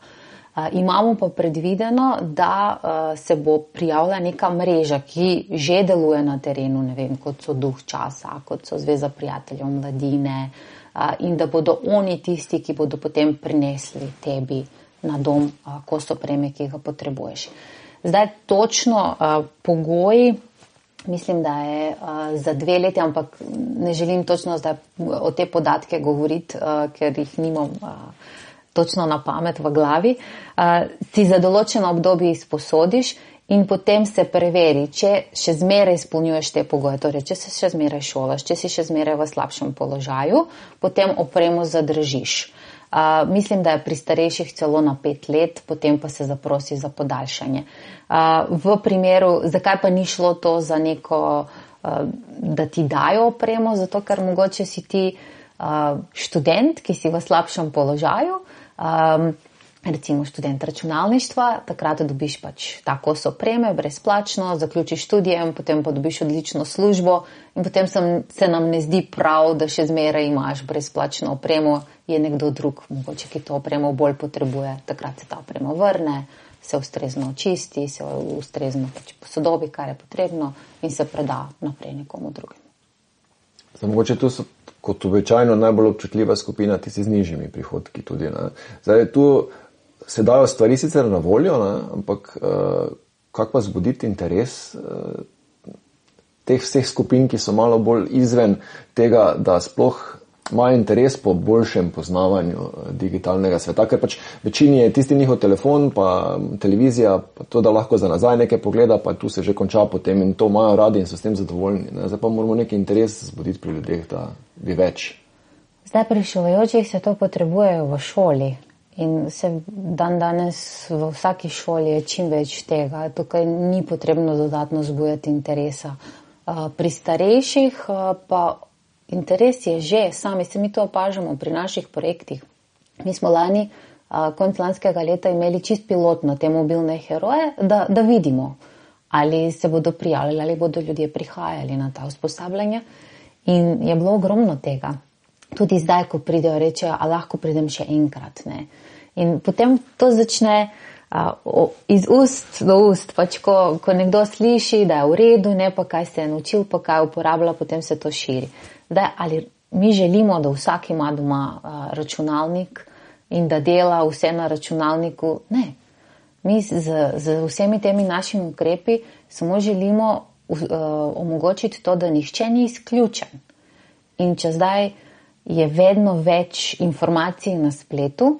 Speaker 2: Imamo pa predvideno, da se bo prijavila neka mreža, ki že deluje na terenu, ne vem, kot so Duh časa, kot so Zveza prijateljev mladine, in da bodo oni tisti, ki bodo potem prinesli tebi na dom kos opreme, ki ga potrebuješ. Zdaj točno pogoji, mislim, da je za 2 leti, ampak ne želim točno zdaj o te podatke govoriti, ker jih nimam točno na pamet v glavi. Si za določeno obdobje izposodiš in potem se preveri, če še zmeraj izpolnjuješ te pogoje, torej če se še zmeraj šolaš, če si še zmeraj v slabšem položaju, potem opremo zadržiš. Mislim, da je pri starejših celo na 5 let, potem pa se zaprosi za podaljšanje. V primeru, zakaj pa ni šlo to za neko, da ti dajo opremo, zato ker mogoče si ti študent, ki si v slabšem položaju, recimo študent računalništva, takrat dobiš pač ta kos opreme brezplačno, zaključiš študijem, potem pa dobiš odlično službo in potem se nam ne zdi prav, da še zmeraj imaš brezplačno opremo, je nekdo drug, mogoče, ki to opremo bolj potrebuje, takrat se ta oprema vrne, se ustrezno očisti, se ustrezno pač posodobi, kar je potrebno in se preda naprej nekomu drugemu.
Speaker 1: Zdaj, mogoče tu so kot običajno najbolj občutljiva skupina, tisti z nižjimi prihodki tudi. Ne? Zdaj, tu se dajo stvari sicer na voljo, ne? Ampak kako pa zbuditi interes teh vseh skupin, ki so malo bolj izven tega, da sploh imajo interes po boljšem poznavanju digitalnega sveta, ker pač večini je tisti njihov telefon, pa televizija, pa to, da lahko za nazaj nekaj pogleda, pa tu se že konča potem in to imajo radi in so s tem zadovoljni. Ne? Zdaj pa moramo neki interes zbuditi pri ljudeh, da bi več.
Speaker 2: Zdaj pri šolajočih se to potrebujejo v šoli. In se danes v vsaki šoli je čim več tega. Tukaj ni potrebno dodatno zbujati interesa. Pri starejših pa interes je že, sami se mi to opažamo pri naših projektih. Mi smo lani, konec lanskega leta, imeli čist pilotno te mobilne heroje, da vidimo, ali se bodo prijavljali, ali bodo ljudje prihajali na ta usposabljanja. In je bilo ogromno tega. Tudi zdaj, ko pridejo, rečejo, a lahko pridem še enkrat, ne. In potem to začne iz ust do ust, pač ko nekdo sliši, da je v redu, ne pa kaj se je naučil, pa kaj uporablja, potem se to širi. Zdaj, ali mi želimo, da vsak ima doma računalnik in da dela vse na računalniku? Ne. Mi z vsemi temi našimi ukrepi samo želimo omogočiti to, da nihče ni izključen. In če zdaj je vedno več informacij na spletu,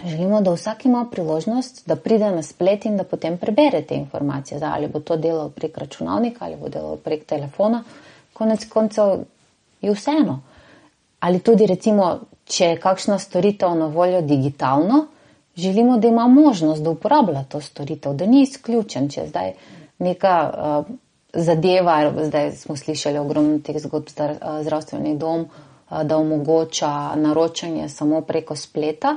Speaker 2: želimo, da vsak ima priložnost, da pride na splet in da potem prebere te informacije. Zdaj, ali bo to delal prek računalnika, ali bo delal prek telefona, konec koncev je vseeno. Ali tudi recimo, če je kakšna storitev na voljo digitalno, želimo, da ima možnost, da uporablja to storitev, da ni izključen. Če zdaj neka zadeva, zdaj smo slišali ogromno teh zgodb, zdravstveni dom, da omogoča naročanje samo preko spleta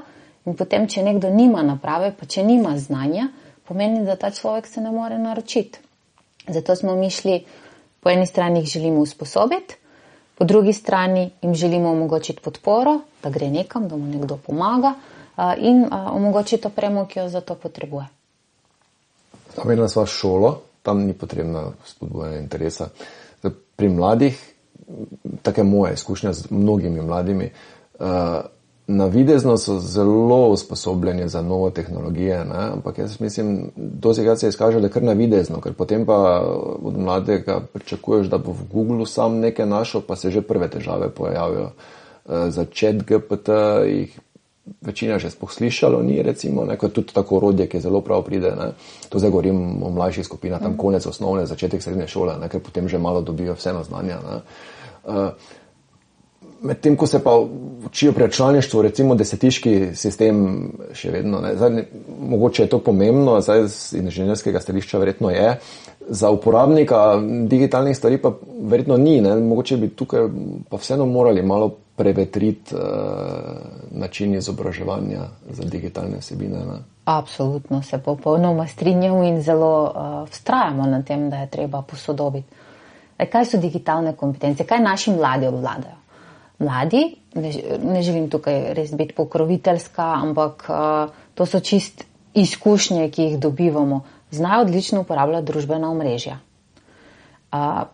Speaker 2: in potem, če nekdo nima naprave, pa če nima znanja, pomeni, da ta človek se ne more naročiti. Zato smo mi šli, po eni strani jih želimo usposobiti, po drugi strani jim želimo omogočiti podporo, da gre nekam, da mu nekdo pomaga in omogočiti opremo, ki jo za to potrebuje.
Speaker 1: Omenila sva šolo, tam ni potrebna spodbujanje interesa. Pri mladih, take moje izkušnje z mnogimi mladimi, navidezno so zelo usposobljeni za novo tehnologije, ne? Ampak jaz mislim, dostikrat se izkaže, da kar navidezno, ker potem pa od mladega pričakuješ, da bo v Googlu sam nekaj našel, pa se že prve težave pojavijo. Za ChatGPT jih večina že sploh slišalo ni, recimo, ne, kot tudi tako orodje, ki zelo prav pride, ne. To zdaj govorim o mlajših skupinah, tam konec osnovne, začetek srednje šole, ne, ker potem že malo dobijo vseeno znanja, ne. Medtem, ko se pa učijo pri računalništvu, recimo desetiški sistem še vedno, ne. Zdaj, mogoče je to pomembno, zdaj z inženirskega stališča verjetno je, za uporabnika digitalnih stvari pa verjetno ni, ne. Mogoče bi tukaj pa vseeno morali malo prevetriti način izobraževanja za digitalne vsebine, ne.
Speaker 2: Absolutno se popolnoma strinjam in zelo vztrajamo na tem, da je treba posodobiti. Kaj so digitalne kompetence? Kaj naši mladi obvladajo? Mladi, ne želim tukaj res biti pokroviteljska, ampak to so čist izkušnje, ki jih dobivamo. Znajo odlično uporabljati družbena omrežja.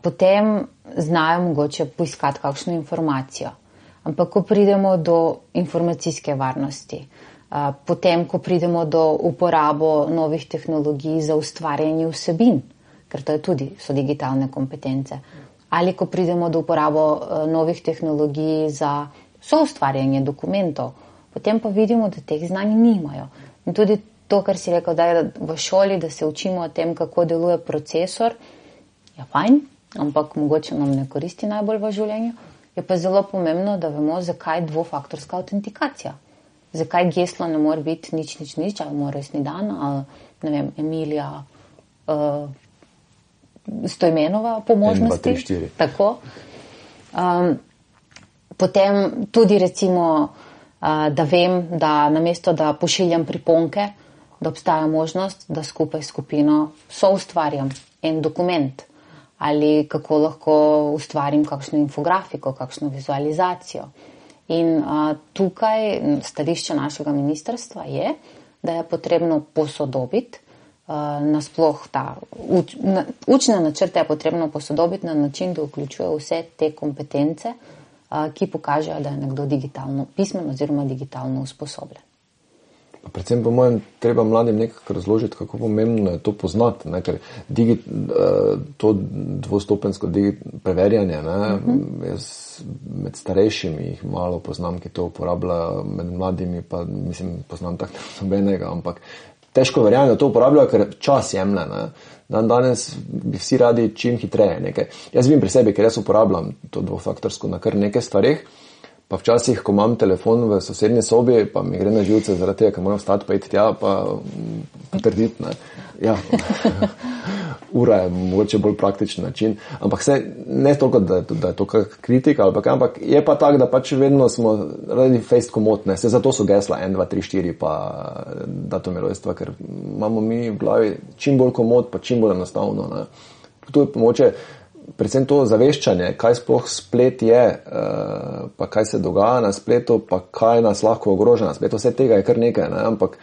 Speaker 2: Potem znajo mogoče poiskati kakšno informacijo. Ampak ko pridemo do informacijske varnosti, potem ko pridemo do uporabo novih tehnologij za ustvarjanje vsebin, ker to je tudi, so digitalne kompetence, ali ko pridemo do uporabo novih tehnologij za soustvarjanje dokumentov, potem pa vidimo, da teh znanj nimajo. In tudi to, kar si rekel, da je v šoli, da se učimo o tem, kako deluje procesor, je fajn, ampak mogoče nam ne koristi najbolj v življenju. Je pa zelo pomembno, da vemo, zakaj dvofaktorska autentikacija. Zakaj geslo ne more biti nič, ali mora resni dan, ali ne vem, Emilija Stojmenova po možnosti.
Speaker 1: 1, 2, 3, 4.
Speaker 2: Tako. Potem tudi recimo, da vem, da namesto, da pošiljam priponke, da obstaja možnost, da skupaj s skupino soustvarjam en dokument. Ali kako lahko ustvarim kakšno infografiko, kakšno vizualizacijo. In tukaj stališče našega ministrstva je, da je potrebno posodobiti nasploh učne načrte je potrebno posodobiti na način, da vključuje vse te kompetence, ki pokažejo, da je nekdo digitalno pismen oziroma digitalno usposobljen.
Speaker 1: Predvsem po mojem treba mladim nekako razložiti, kako pomembno je to poznati, ne? Ker to dvostopensko preverjanje, ne? Jaz med starejšimi jih malo poznam, ki to uporabljajo, med mladimi pa mislim, poznam tako nobenega, ampak težko verjamem, da to uporabljajo, ker čas jemlje. Danes bi vsi radi čim hitreje nekaj. Jaz vidim pri sebi, ker jaz uporabljam to dvofaktorsko na kar nekaj stvareh, pa včasih, ko imam telefon v sosednji sobi, pa mi gre na živce zaradi tega, ker moram vstati pa iti tja, pa potrditi. Ja. Ura je mogoče bolj praktičen način, ampak ne toliko, da je to kritika, ampak je pa tak, da pač vedno smo radi fejst komotne, zato so gesla 1, 2, 3, 4 pa datum rojstva, ker imamo mi v glavi čim bolj komot, pa čim bolj enostavno. Ne. Tu je mogoče predvsem to zaveščanje, kaj sploh splet je, pa kaj se dogaja na spletu, pa kaj nas lahko ogroža na spletu. Vse tega je kar nekaj, ne? Ampak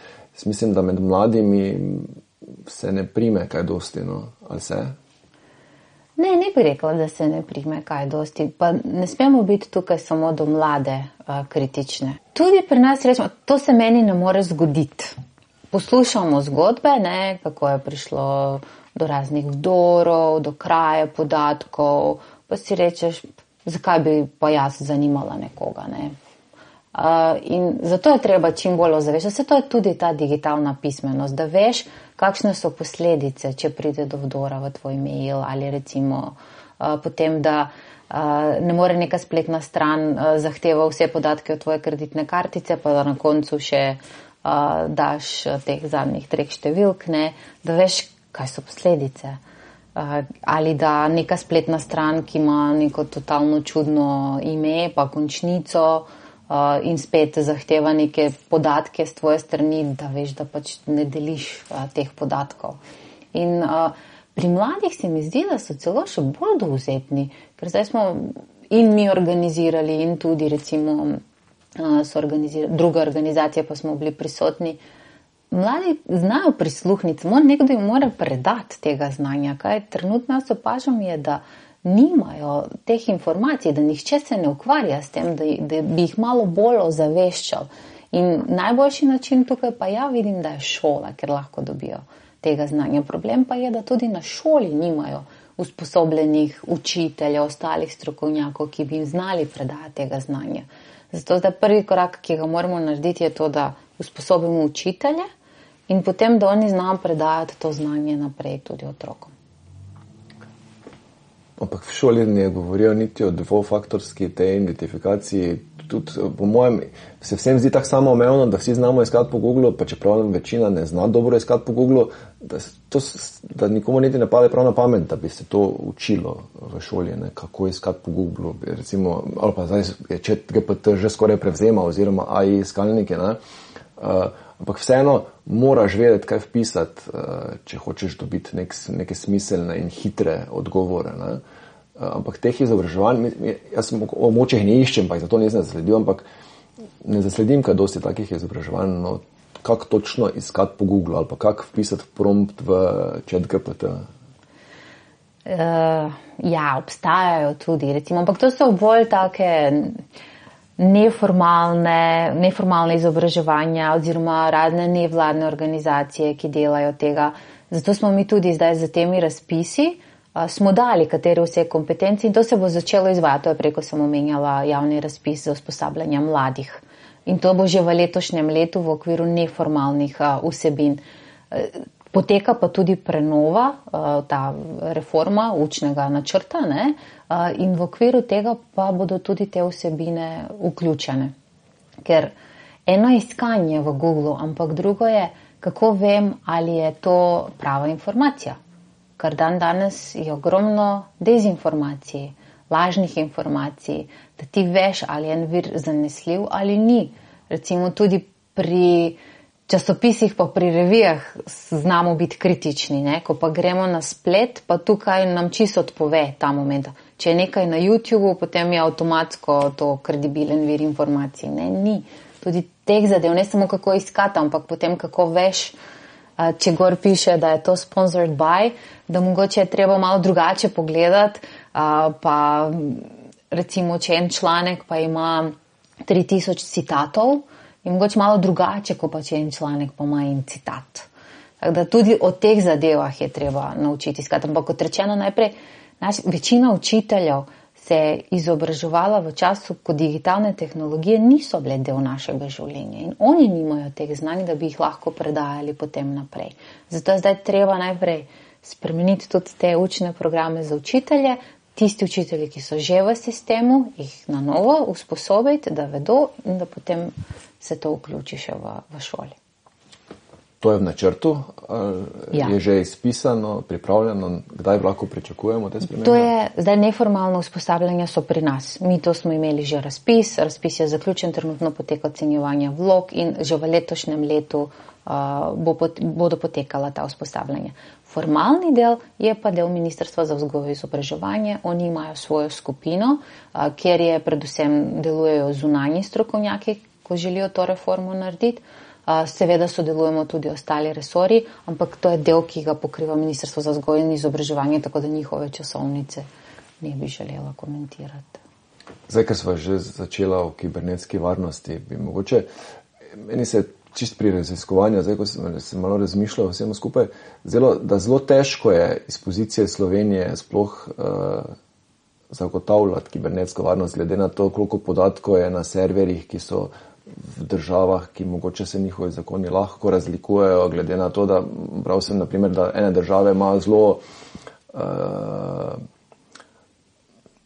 Speaker 1: mislim, da med mladimi se ne prime kaj dosti, no? Ali se?
Speaker 2: Ne bi rekla, da se ne prime kaj dosti. Pa ne smemo biti tukaj samo do mlade kritične. Tudi pri nas rečemo, to se meni ne more zgoditi. Poslušamo zgodbe, ne, kako je prišlo do raznih vdorov, do kraje podatkov, pa si rečeš, zakaj bi pa jaz zanimala nekoga. Ne? In zato je treba čim bolj ozaveščati. Vse to je tudi ta digitalna pismenost, da veš, kakšne so posledice, če pride do vdora v tvoj mail ali recimo potem, da ne more neka spletna stran zahteva vse podatke od tvoje kreditne kartice, pa da na koncu še daš teh zadnjih 3 številk, ne? Da veš, kaj so posledice. Ali da neka spletna stran, ki ima neko totalno čudno ime, pa končnico in spet zahteva neke podatke z tvoje strani, da veš, da pač ne deliš teh podatkov. In pri mladih se mi zdi, da so celo še bolj dovzetni, ker zdaj smo in mi organizirali in tudi recimo so druge organizacije, pa smo bili prisotni. Mladi znajo prisluhniti, nekdo jim mora predati tega znanja. Kaj trenutno jaz opažam je, da nimajo teh informacij, da nihče se ne ukvarja s tem, da bi jih malo bolj ozaveščal. In najboljši način tukaj pa ja vidim, da je šola, ker lahko dobijo tega znanja. Problem pa je, da tudi na šoli nimajo usposobljenih učiteljev, ostalih strokovnjakov, ki bi jim znali predati tega znanja. Zato zdaj prvi korak, ki ga moramo narediti, je to, da usposobimo učitelje in potem, da oni znajo predajati to znanje naprej tudi otrokom.
Speaker 1: Ampak v šoli ne govorijo niti o dvofaktorski tej identifikaciji. Tudi, po mojem, se vsem zdi tako samoumevno, da vsi znamo iskati po Googlu, pa čeprav večina ne zna dobro iskati po Googlu, da nikomu niti ne pade prav na pamet, da bi se to učilo v šoli, ne, kako iskati po Googlu. Recimo, ali pa zdaj je ChatGPT že skoraj prevzema oziroma AI iskalnike, ne. Ampak vseeno moraš vedeti, kaj vpisati, če hočeš dobiti neke smiselne in hitre odgovore, ne. Ampak teh izobraževanj, jaz o močeh ne iščem, pa jih zato ne zasledim, ampak ne zasledim kaj dosti takih izobraževanj, no, kako točno iskati po Google ali pa kako vpisati prompt v ChatGPT.
Speaker 2: Ja, obstajajo tudi, recimo, ampak to so bolj take neformalne izobraževanja oziroma razne nevladne organizacije, ki delajo tega. Zato smo mi tudi zdaj za temi razpisi smo dali, katere vse kompetenci in to se bo začelo izvajati. To je preko, sem omenjala, javni razpis za usposabljanje mladih. In to bo že v letošnjem letu v okviru neformalnih vsebin. Poteka pa tudi prenova, ta reforma učnega načrta, ne? In v okviru tega pa bodo tudi te vsebine vključene. Ker eno je iskanje v Googlu, ampak drugo je, kako vem, ali je to prava informacija. Ker danes je ogromno dezinformacij, lažnih informacij, da ti veš, ali je en vir zanesljiv ali ni. Recimo tudi pri časopisih pa pri revijah znamo biti kritični, ne? Ko pa gremo na splet, pa tukaj nam čisto odpove ta moment. Če je nekaj na YouTubeu, potem je avtomatsko to kredibilen vir informacij. Ne, ni. Tudi teh zadev, ne samo kako iskati, ampak potem kako veš, če gor piše, da je to sponsored by, da mogoče je treba malo drugače pogledati, pa recimo, če en članek pa ima 3000 citatov, je mogoče malo drugače, kot pa če en članek pa ima en citat. Tako da tudi o teh zadevah je treba naučiti iskati. Ampak kot rečeno najprej, večina učiteljev se je izobraževala v času, ko digitalne tehnologije niso bile del našega življenja in oni nimajo teh znanj, da bi jih lahko predajali potem naprej. Zato je zdaj treba najprej spremeniti tudi te učne programe za učitelje, tisti učitelji, ki so že v sistemu, jih na novo usposobiti, da vedo in da potem se to vključi še v šoli.
Speaker 1: To je v načrtu,
Speaker 2: Ja.
Speaker 1: Je že izpisano, pripravljeno, kdaj lahko pričakujemo te spremembe?
Speaker 2: To je zdaj neformalno usposabljanje so pri nas. Mi to smo imeli že razpis je zaključen, trenutno poteka ocenjevanje vlog in že v letošnjem letu bodo potekala ta usposabljanja. Formalni del je pa del Ministrstva za vzgojo in izobraževanje. Oni imajo svojo skupino, kjer je predvsem delujejo zunanji strokovnjaki, ko želijo to reformo narediti. Seveda sodelujemo tudi ostali resorji, ampak to je del, ki ga pokriva Ministrstvo za vzgojo in izobraževanje, tako da njihove časovnice ne bi želela komentirati.
Speaker 1: Zdaj, ker smo že začela o kibernetski varnosti, bi mogoče, meni se čist pri raziskovanju, zdaj, ko sem malo razmišljal vsemu skupaj, da zelo težko je iz pozicije Slovenije sploh zagotavljati kibernetsko varnost, glede na to, koliko podatkov je na serverjih, ki so v državah, ki mogoče se njihovi zakoni lahko razlikujejo, glede na to, da bral sem, naprimer, da ene države imajo zelo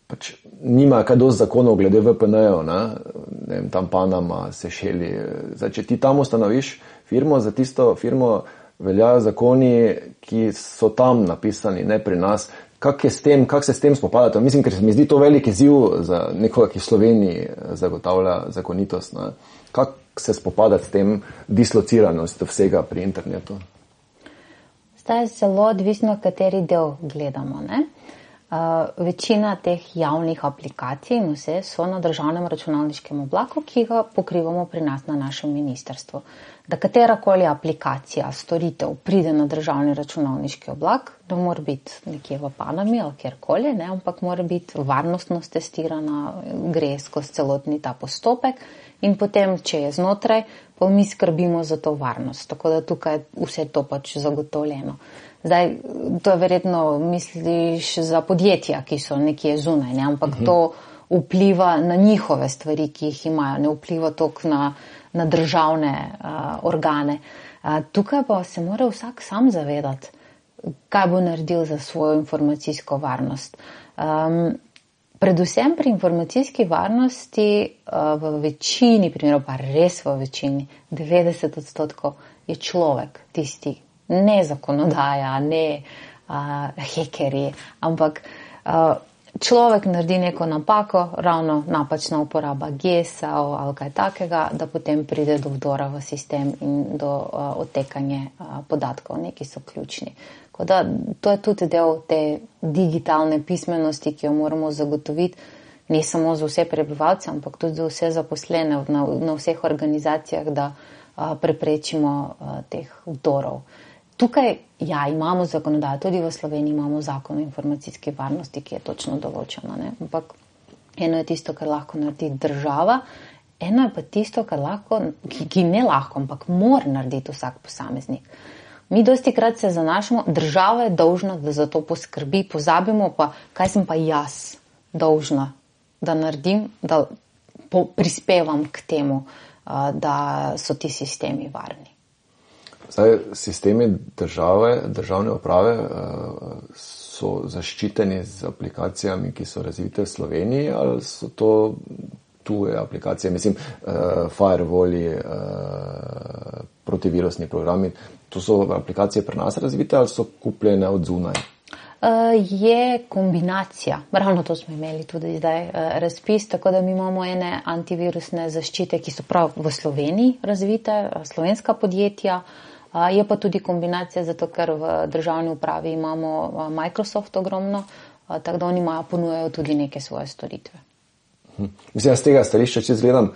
Speaker 1: pač nimajo kaj dosti zakonov glede VPN-jev, ne vem, tam Panama, Sešeli. Zdaj, če ti tam ustanoviš firmo, za tisto firmo veljajo zakoni, ki so tam napisani, ne pri nas. Kako se s tem spopadate? Mislim, ker se mi zdi to velik izziv za nekoga, ki v Sloveniji zagotavlja zakonitost. Ne? Kako se spopadati s tem dislociranostjo vsega pri internetu?
Speaker 2: Zdaj je zelo odvisno, kateri del gledamo. Ne? Večina teh javnih aplikacij in vse so na državnem računalniškem oblaku, ki ga pokrivamo pri nas na našem ministrstvu. Da katerakoli aplikacija, storitev pride na državni računalniški oblak, da mora biti nekje v Panami ali kjerkoli, ne, ampak mora biti varnostno testirana, gre skozi celotni ta postopek in potem, če je znotraj, pa mi skrbimo za to varnost. Tako da tukaj vse to pač zagotovljeno. Zdaj, to je verjetno, misliš, za podjetja, ki so nekje zunaj, ne? Ampak to vpliva na njihove stvari, ki jih imajo, ne vpliva toliko na državne organe. Tukaj pa se mora vsak sam zavedati, kaj bo naredil za svojo informacijsko varnost. Predvsem pri informacijski varnosti v večini primerov, pa res v večini, 90% je človek tisti, ne zakonodaja, ne hekerji, ampak človek naredi neko napako, ravno napačna uporaba GES-a ali kaj takega, da potem pride do vdora v sistem in do odtekanja podatkov, neki so ključni. Da, to je tudi del te digitalne pismenosti, ki jo moramo zagotoviti ne samo za vse prebivalce, ampak tudi za vse zaposlene na vseh organizacijah, da preprečimo teh vdorov. Tukaj, imamo zakonodajo, tudi v Sloveniji imamo zakon o informacijski varnosti, ki je točno določena, ne? Ampak eno je tisto, kar lahko naredi država, eno je pa tisto, kar lahko, ki ne lahko, ampak mora narediti vsak posameznik. Mi dosti krat se zanašamo, država je dolžna, da za to poskrbi, pozabimo pa, kaj sem pa jaz dolžna, da naredim, da prispevam k temu, da so ti sistemi varni.
Speaker 1: Zdaj, sistemi državne uprave so zaščiteni z aplikacijami, ki so razvite v Sloveniji, ali so to tuje aplikacije, mislim, firewalli, protivirusni programi, to so aplikacije pri nas razvite ali so kupljene od zunaj?
Speaker 2: Je kombinacija. Ravno to smo imeli tudi zdaj razpis, tako da mi imamo ene antivirusne zaščite, ki so prav v Sloveniji razvite, slovenska podjetja, je pa tudi kombinacija, zato ker v državni upravi imamo Microsoft ogromno, tako da oni ponujajo tudi neke svoje storitve.
Speaker 1: Mislim, z tega stališča, če gledam,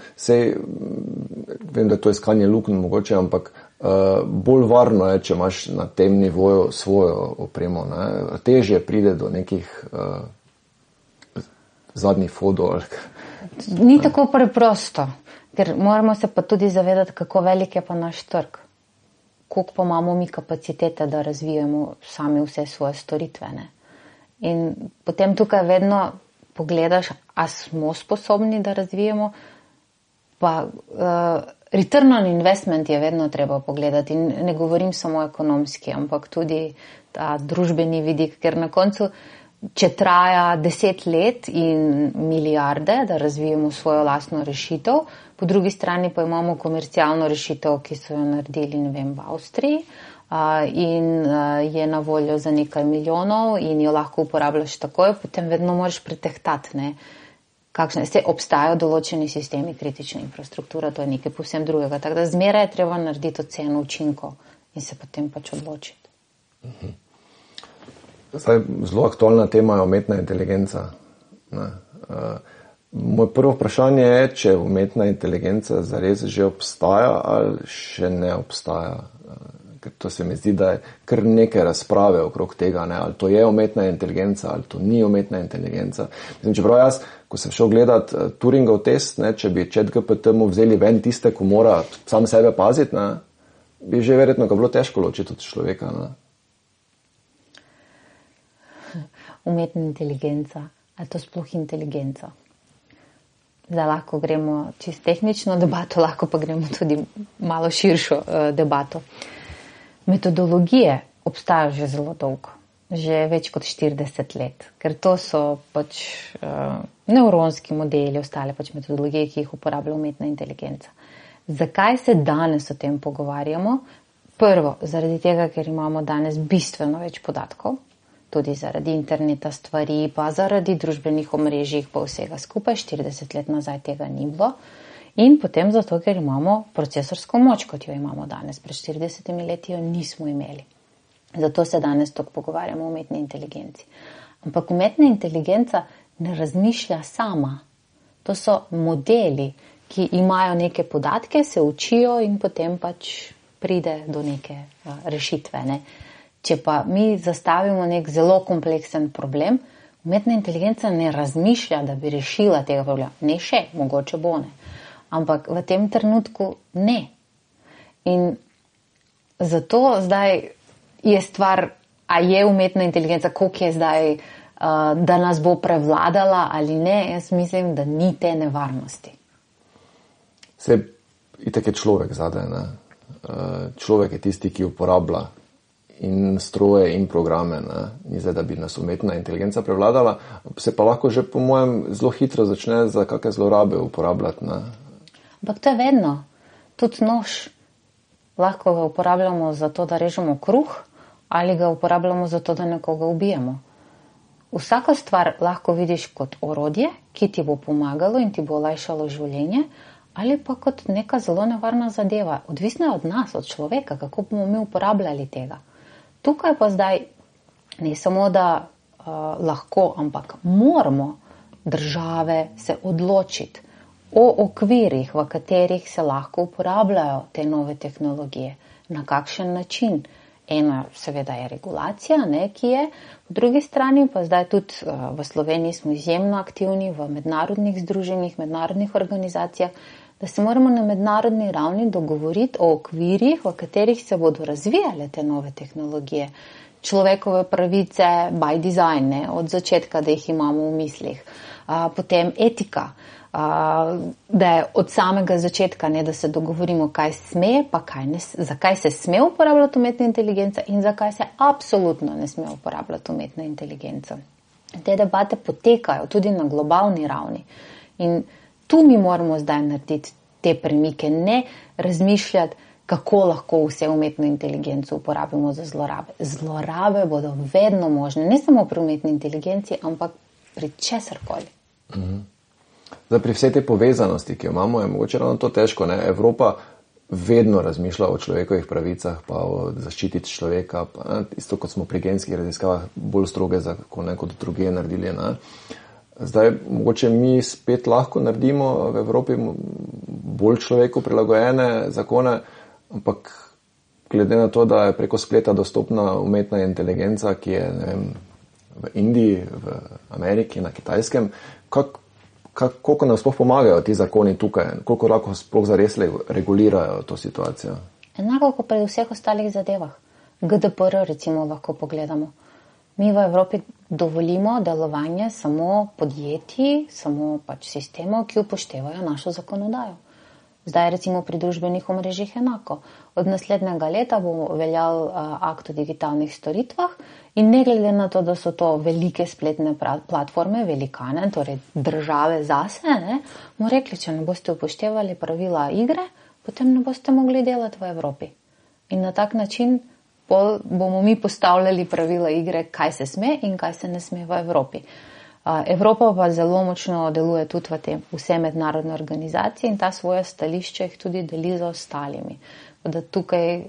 Speaker 1: vem, da to je iskanje luknj mogoče, ampak bolj varno je, če imaš na tem nivoju svojo opremo. Ne? Težje pride do nekih zadnjih fotov.
Speaker 2: Ni tako preprosto, ker moramo se pa tudi zavedati, kako velik je pa naš trg. Koliko pa imamo mi kapacitete, da razvijemo sami vse svoje storitve. Ne? In potem tukaj vedno pogledaš, a smo sposobni, da razvijemo, pa return on investment je vedno treba pogledati. In ne govorim samo ekonomski, ampak tudi ta družbeni vidik, ker na koncu, če traja 10 let in milijarde, da razvijemo svojo lastno rešitev, po drugi strani pa imamo komercialno rešitev, ki so jo naredili, ne vem, v Avstriji, in je na voljo za nekaj milijonov in jo lahko uporabljaš takoj, potem vedno moraš pretehtati, ne, se obstajajo določeni sistemi kritične infrastrukture, to je nekaj povsem drugega, tako da zmeraj je treba narediti oceno učinkov in se potem pač odločiti.
Speaker 1: Zdaj, zelo aktualna tema je umetna inteligenca. Moje prvo vprašanje je, če umetna inteligenca zares že obstaja ali še ne obstaja. Ker to se mi zdi, da je kar neke razprave okrog tega, ne? Ali to je umetna inteligenca, ali to ni umetna inteligenca. Mislim, čeprav jaz, ko sem šel gledat Turingov test, ne, če bi ChatGPT mu vzeli ven tiste, ko mora sam sebe paziti, ne, bi že verjetno ga bilo težko ločiti od človeka. Ne?
Speaker 2: Umetna inteligenca, ali to sploh inteligenca? Zdaj lahko gremo čisto tehnično debato, lahko pa gremo tudi malo širšo debato. Metodologije obstajajo že zelo dolgo, že več kot 40 let, ker to so pač nevronski modeli, ostale pač metodologije, ki jih uporablja umetna inteligenca. Zakaj se danes o tem pogovarjamo? Prvo, zaradi tega, ker imamo danes bistveno več podatkov, tudi zaradi interneta stvari, pa zaradi družbenih omrežij, pa vsega skupaj, 40 let nazaj tega ni bilo. In potem zato, ker imamo procesorsko moč, kot jo imamo danes. Pred 40 leti jo nismo imeli. Zato se danes tako pogovarjamo o umetni inteligenci. Ampak umetna inteligenca ne razmišlja sama. To so modeli, ki imajo neke podatke, se učijo in potem pač pride do neke rešitve. Ne? Če pa mi zastavimo nek zelo kompleksen problem, umetna inteligenca ne razmišlja, da bi rešila tega problema. Ne še, mogoče bo ne. Ampak v tem trenutku ne. In zato zdaj je stvar a je umetna inteligenca, koliko je zdaj, da nas bo prevladala ali ne, jaz mislim, da ni te nevarnosti.
Speaker 1: Se itak je človek zadaj, ne? Človek je tisti, ki uporablja in stroje in programe, ne? Ni zdaj, da bi nas umetna inteligenca prevladala, se pa lahko že po mojem zelo hitro začne za kakšne zlorabe uporabljati, ne?
Speaker 2: Ampak to je vedno. Tudi nož. Lahko ga uporabljamo za to, da režemo kruh, ali ga uporabljamo za to, da nekoga ubijemo. Vsako stvar lahko vidiš kot orodje, ki ti bo pomagalo in ti bo olajšalo življenje, ali pa kot neka zelo nevarna zadeva. Odvisno je od nas, od človeka, kako bomo mi uporabljali tega. Tukaj pa zdaj ne samo, da lahko, ampak moramo države se odločiti o okvirih, v katerih se lahko uporabljajo te nove tehnologije. Na kakšen način? Eno seveda je regulacija, ne, ki je. Po drugi strani pa zdaj tudi v Sloveniji smo izjemno aktivni v mednarodnih združenjih, mednarodnih organizacijah, da se moramo na mednarodni ravni dogovoriti o okvirih, v katerih se bodo razvijale te nove tehnologije. Človekove pravice by design, ne, od začetka, da jih imamo v mislih. Potem etika, da je od samega začetka, ne, da se dogovorimo, kaj sme, pa zakaj se sme uporabljati umetna inteligenca in zakaj se absolutno ne sme uporabljati umetna inteligenca. Te debate potekajo tudi na globalni ravni in tu mi moramo zdaj narediti te premike, ne razmišljati, kako lahko vse umetno inteligenco uporabimo za zlorabe. Zlorabe bodo vedno možne, ne samo pri umetni inteligenci, ampak pri česarkoli.
Speaker 1: Zdaj, pri vsej te povezanosti, ki jo imamo, je mogoče ravno to težko, ne? Evropa vedno razmišlja o človekovih pravicah, pa o zaščiti človeka, pa, ne? Isto kot smo pri genskih raziskavah bolj stroge zakone kot druge naredili, ne? Zdaj, mogoče mi spet lahko naredimo v Evropi bolj človeku prilagojene zakone, ampak glede na to, da je preko spleta dostopna umetna inteligenca, ki je, ne vem, v Indiji, v Ameriki, na Kitajskem, koliko nam sploh pomagajo ti zakoni tukaj, koliko lahko sploh zares regulirajo to situacijo?
Speaker 2: Enako kot pri vseh ostalih zadevah. GDPR recimo lahko pogledamo. Mi v Evropi dovolimo delovanje samo podjetij, samo pač sistemov, ki upoštevajo našo zakonodajo. Zdaj recimo pri družbenih omrežjih enako. Od naslednjega leta bo veljal akt o digitalnih storitvah in ne glede na to, da so to velike spletne platforme, velikane, torej države zase, ne, bomo rekli, če ne boste upoštevali pravila igre, potem ne boste mogli delati v Evropi. In na tak način bomo mi postavljali pravila igre, kaj se sme in kaj se ne sme v Evropi. Evropa pa zelo močno deluje tudi v te vse mednarodne organizacije in ta svoje stališče jih tudi deli z ostalimi. Da tukaj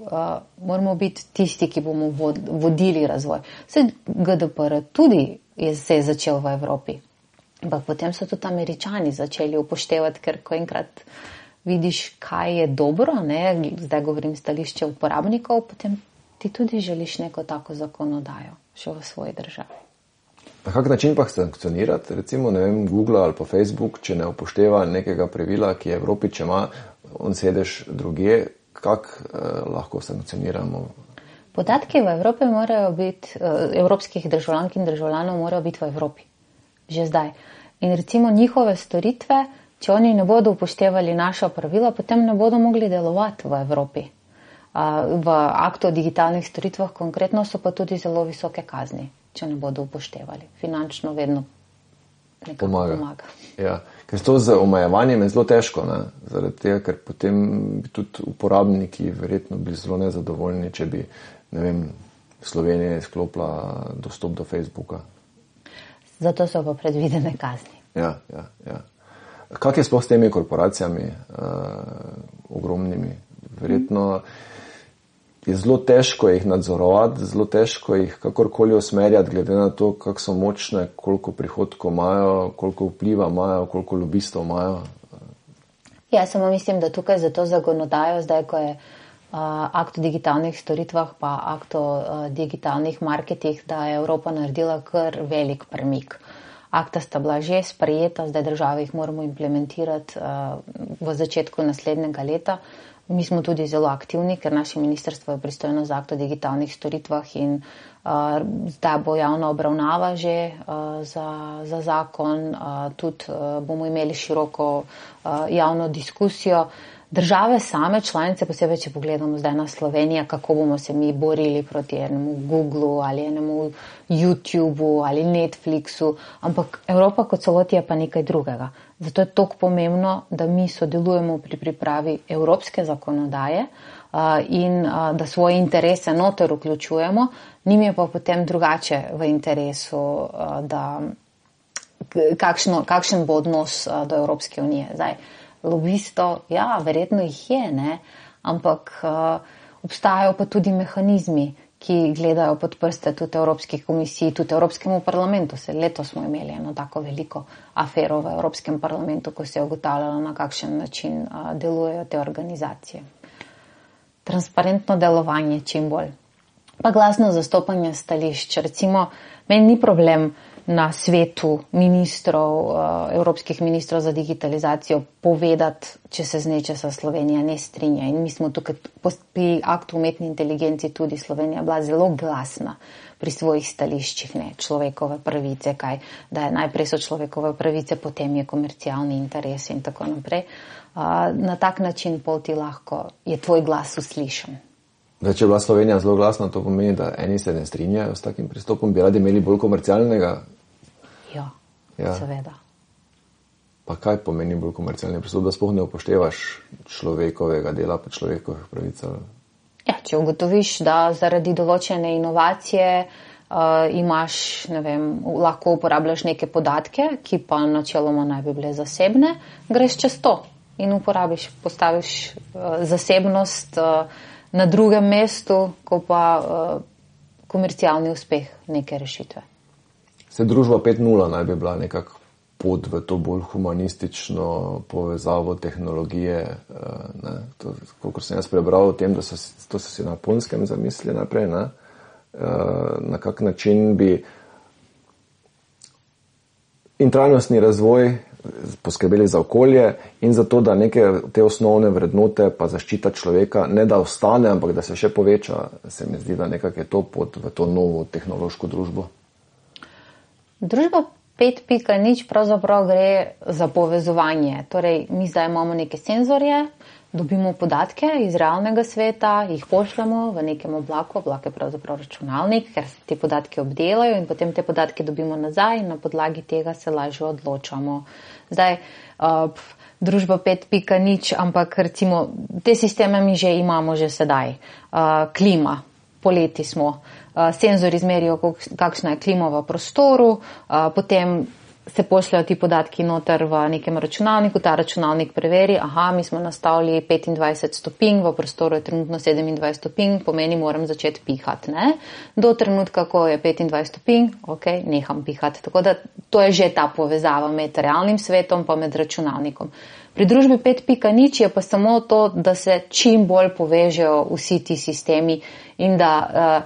Speaker 2: moramo biti tisti, ki bomo vodili razvoj. Vse GDPR tudi se je začel v Evropi. Ampak potem so tudi Američani začeli upoštevati, ker ko enkrat vidiš, kaj je dobro, ne, zdaj govorim stališče uporabnikov, potem ti tudi želiš neko tako zakonodajo še v svoji državi.
Speaker 1: Na kak način pa sankcionirati, recimo, ne vem, Google ali pa Facebook, če ne upošteva nekega pravila, ki je v Evropi, če ima on sedež drugje, kak lahko sankcioniramo?
Speaker 2: Podatki v Evropi morajo biti, evropskih državljank in državljanov morajo biti v Evropi. Že zdaj. In recimo njihove storitve, če oni ne bodo upoštevali naša pravila, potem ne bodo mogli delovati v Evropi. V aktu o digitalnih storitvah konkretno so pa tudi zelo visoke kazni, če ne bodo upoštevali. Finančno vedno nekako pomaga.
Speaker 1: Ja, ker to z omejevanjem je zelo težko, ne? Zaradi tega, ker potem bi tudi uporabniki verjetno bili zelo nezadovoljni, če bi, ne vem, Slovenija izklopila dostop do Facebooka.
Speaker 2: Zato so pa predvidene kazni.
Speaker 1: Ja. Kak je sploh s temi korporacijami ogromnimi? Verjetno je zelo težko jih nadzorovati, zelo težko jih kakorkoli usmerjati, glede na to, kako so močne, koliko prihodkov imajo, koliko vpliva imajo, koliko lobistov imajo.
Speaker 2: Ja, samo mislim, da tukaj za to zakonodajo, zdaj ko je akt o digitalnih storitvah pa akt o digitalnih marketih, da je Evropa naredila kar velik premik. Akta sta bila že sprejeta, zdaj države jih moramo implementirati v začetku naslednjega leta. Mi smo tudi zelo aktivni, ker naše ministrstvo je pristojno za akt o digitalnih storitvah in zdaj bo javna obravnava že za zakon. Tudi bomo imeli široko javno diskusijo. Države same, članice, posebej, če pogledamo zdaj na Slovenijo, kako bomo se mi borili proti enemu Googlu ali enemu YouTubeu ali Netflixu, ampak Evropa kot celoti je pa nekaj drugega. Zato je toliko pomembno, da mi sodelujemo pri pripravi evropske zakonodaje in da svoje interese noter vključujemo. Njim je pa potem drugače v interesu, da kakšen bo odnos do Evropske unije. Zdaj, lobisto, ja, verjetno jih je, ne? Ampak obstajajo pa tudi mehanizmi, ki gledajo pod prste tudi Evropski komisiji, tudi Evropskemu parlamentu. Letos smo imeli eno tako veliko afero v Evropskem parlamentu, ko se je ugotavljalo, na kakšen način delujejo te organizacije. Transparentno delovanje čim bolj. Pa glasno zastopanje stališč. Recimo, meni ni problem na svetu ministrov, evropskih ministrov za digitalizacijo povedati, če se z nečesa Slovenija ne strinja. In mi smo tukaj pri aktu umetni inteligenci tudi Slovenija bila zelo glasna pri svojih stališčih, ne, človekove pravice, kaj, da je najprej so človekove pravice, potem je komercialni interes in tako naprej. Na tak način pol ti lahko je tvoj glas uslišan.
Speaker 1: Da, če je bila Slovenija zelo glasna, to pomeni, da eni se ne strinjajo s takim pristopom, bi radi imeli bolj komercialnega.
Speaker 2: Ja, seveda.
Speaker 1: Pa kaj pomeni bolj komercialni pristop, da sploh ne upoštevaš človekovega dela pa človekovih pravic?
Speaker 2: Ja, če ugotoviš, da zaradi določene inovacije imaš, ne vem, lahko uporabljaš neke podatke, ki pa načeloma naj bi bile zasebne, greš čez to in uporabiš, postaviš zasebnost na drugem mestu, ko pa komercialni uspeh neke rešitve.
Speaker 1: Se družba 5.0 naj bi bila nekako pot v to bolj humanistično povezavo tehnologije. Ne? Kolikor sem jaz prebral o tem, da to so si na Japonskem zamislili naprej, ne? Na kak način bi in trajnostni razvoj poskrbeli za okolje in za to, da neke te osnovne vrednote pa zaščita človeka ne da ostane, ampak da se še poveča. Se mi zdi, da nekako je to pot v to novo tehnološko družbo.
Speaker 2: Družba 5.0 pravzaprav gre za povezovanje. Torej, mi zdaj imamo neke senzorje, dobimo podatke iz realnega sveta, jih pošljamo v nekem oblaku, oblak je pravzaprav računalnik, ker se te podatke obdelajo in potem te podatke dobimo nazaj in na podlagi tega se lažje odločamo. Zdaj, družba 5.0, ampak recimo te sisteme mi že imamo že sedaj. Klima, poleti smo. Senzori izmerijo, kakšna je klima v prostoru, potem se pošljajo ti podatki noter v nekem računalniku, ta računalnik preveri, mi smo nastavili 25 stopinj, v prostoru je trenutno 27 stopinj, pomeni moram začeti pihati. Ne? Do trenutka, ko je 25 stopinj, neham pihati. Tako da to je že ta povezava med realnim svetom pa med računalnikom. Pri družbi 5.0 je pa samo to, da se čim bolj povežejo vsi ti sistemi in da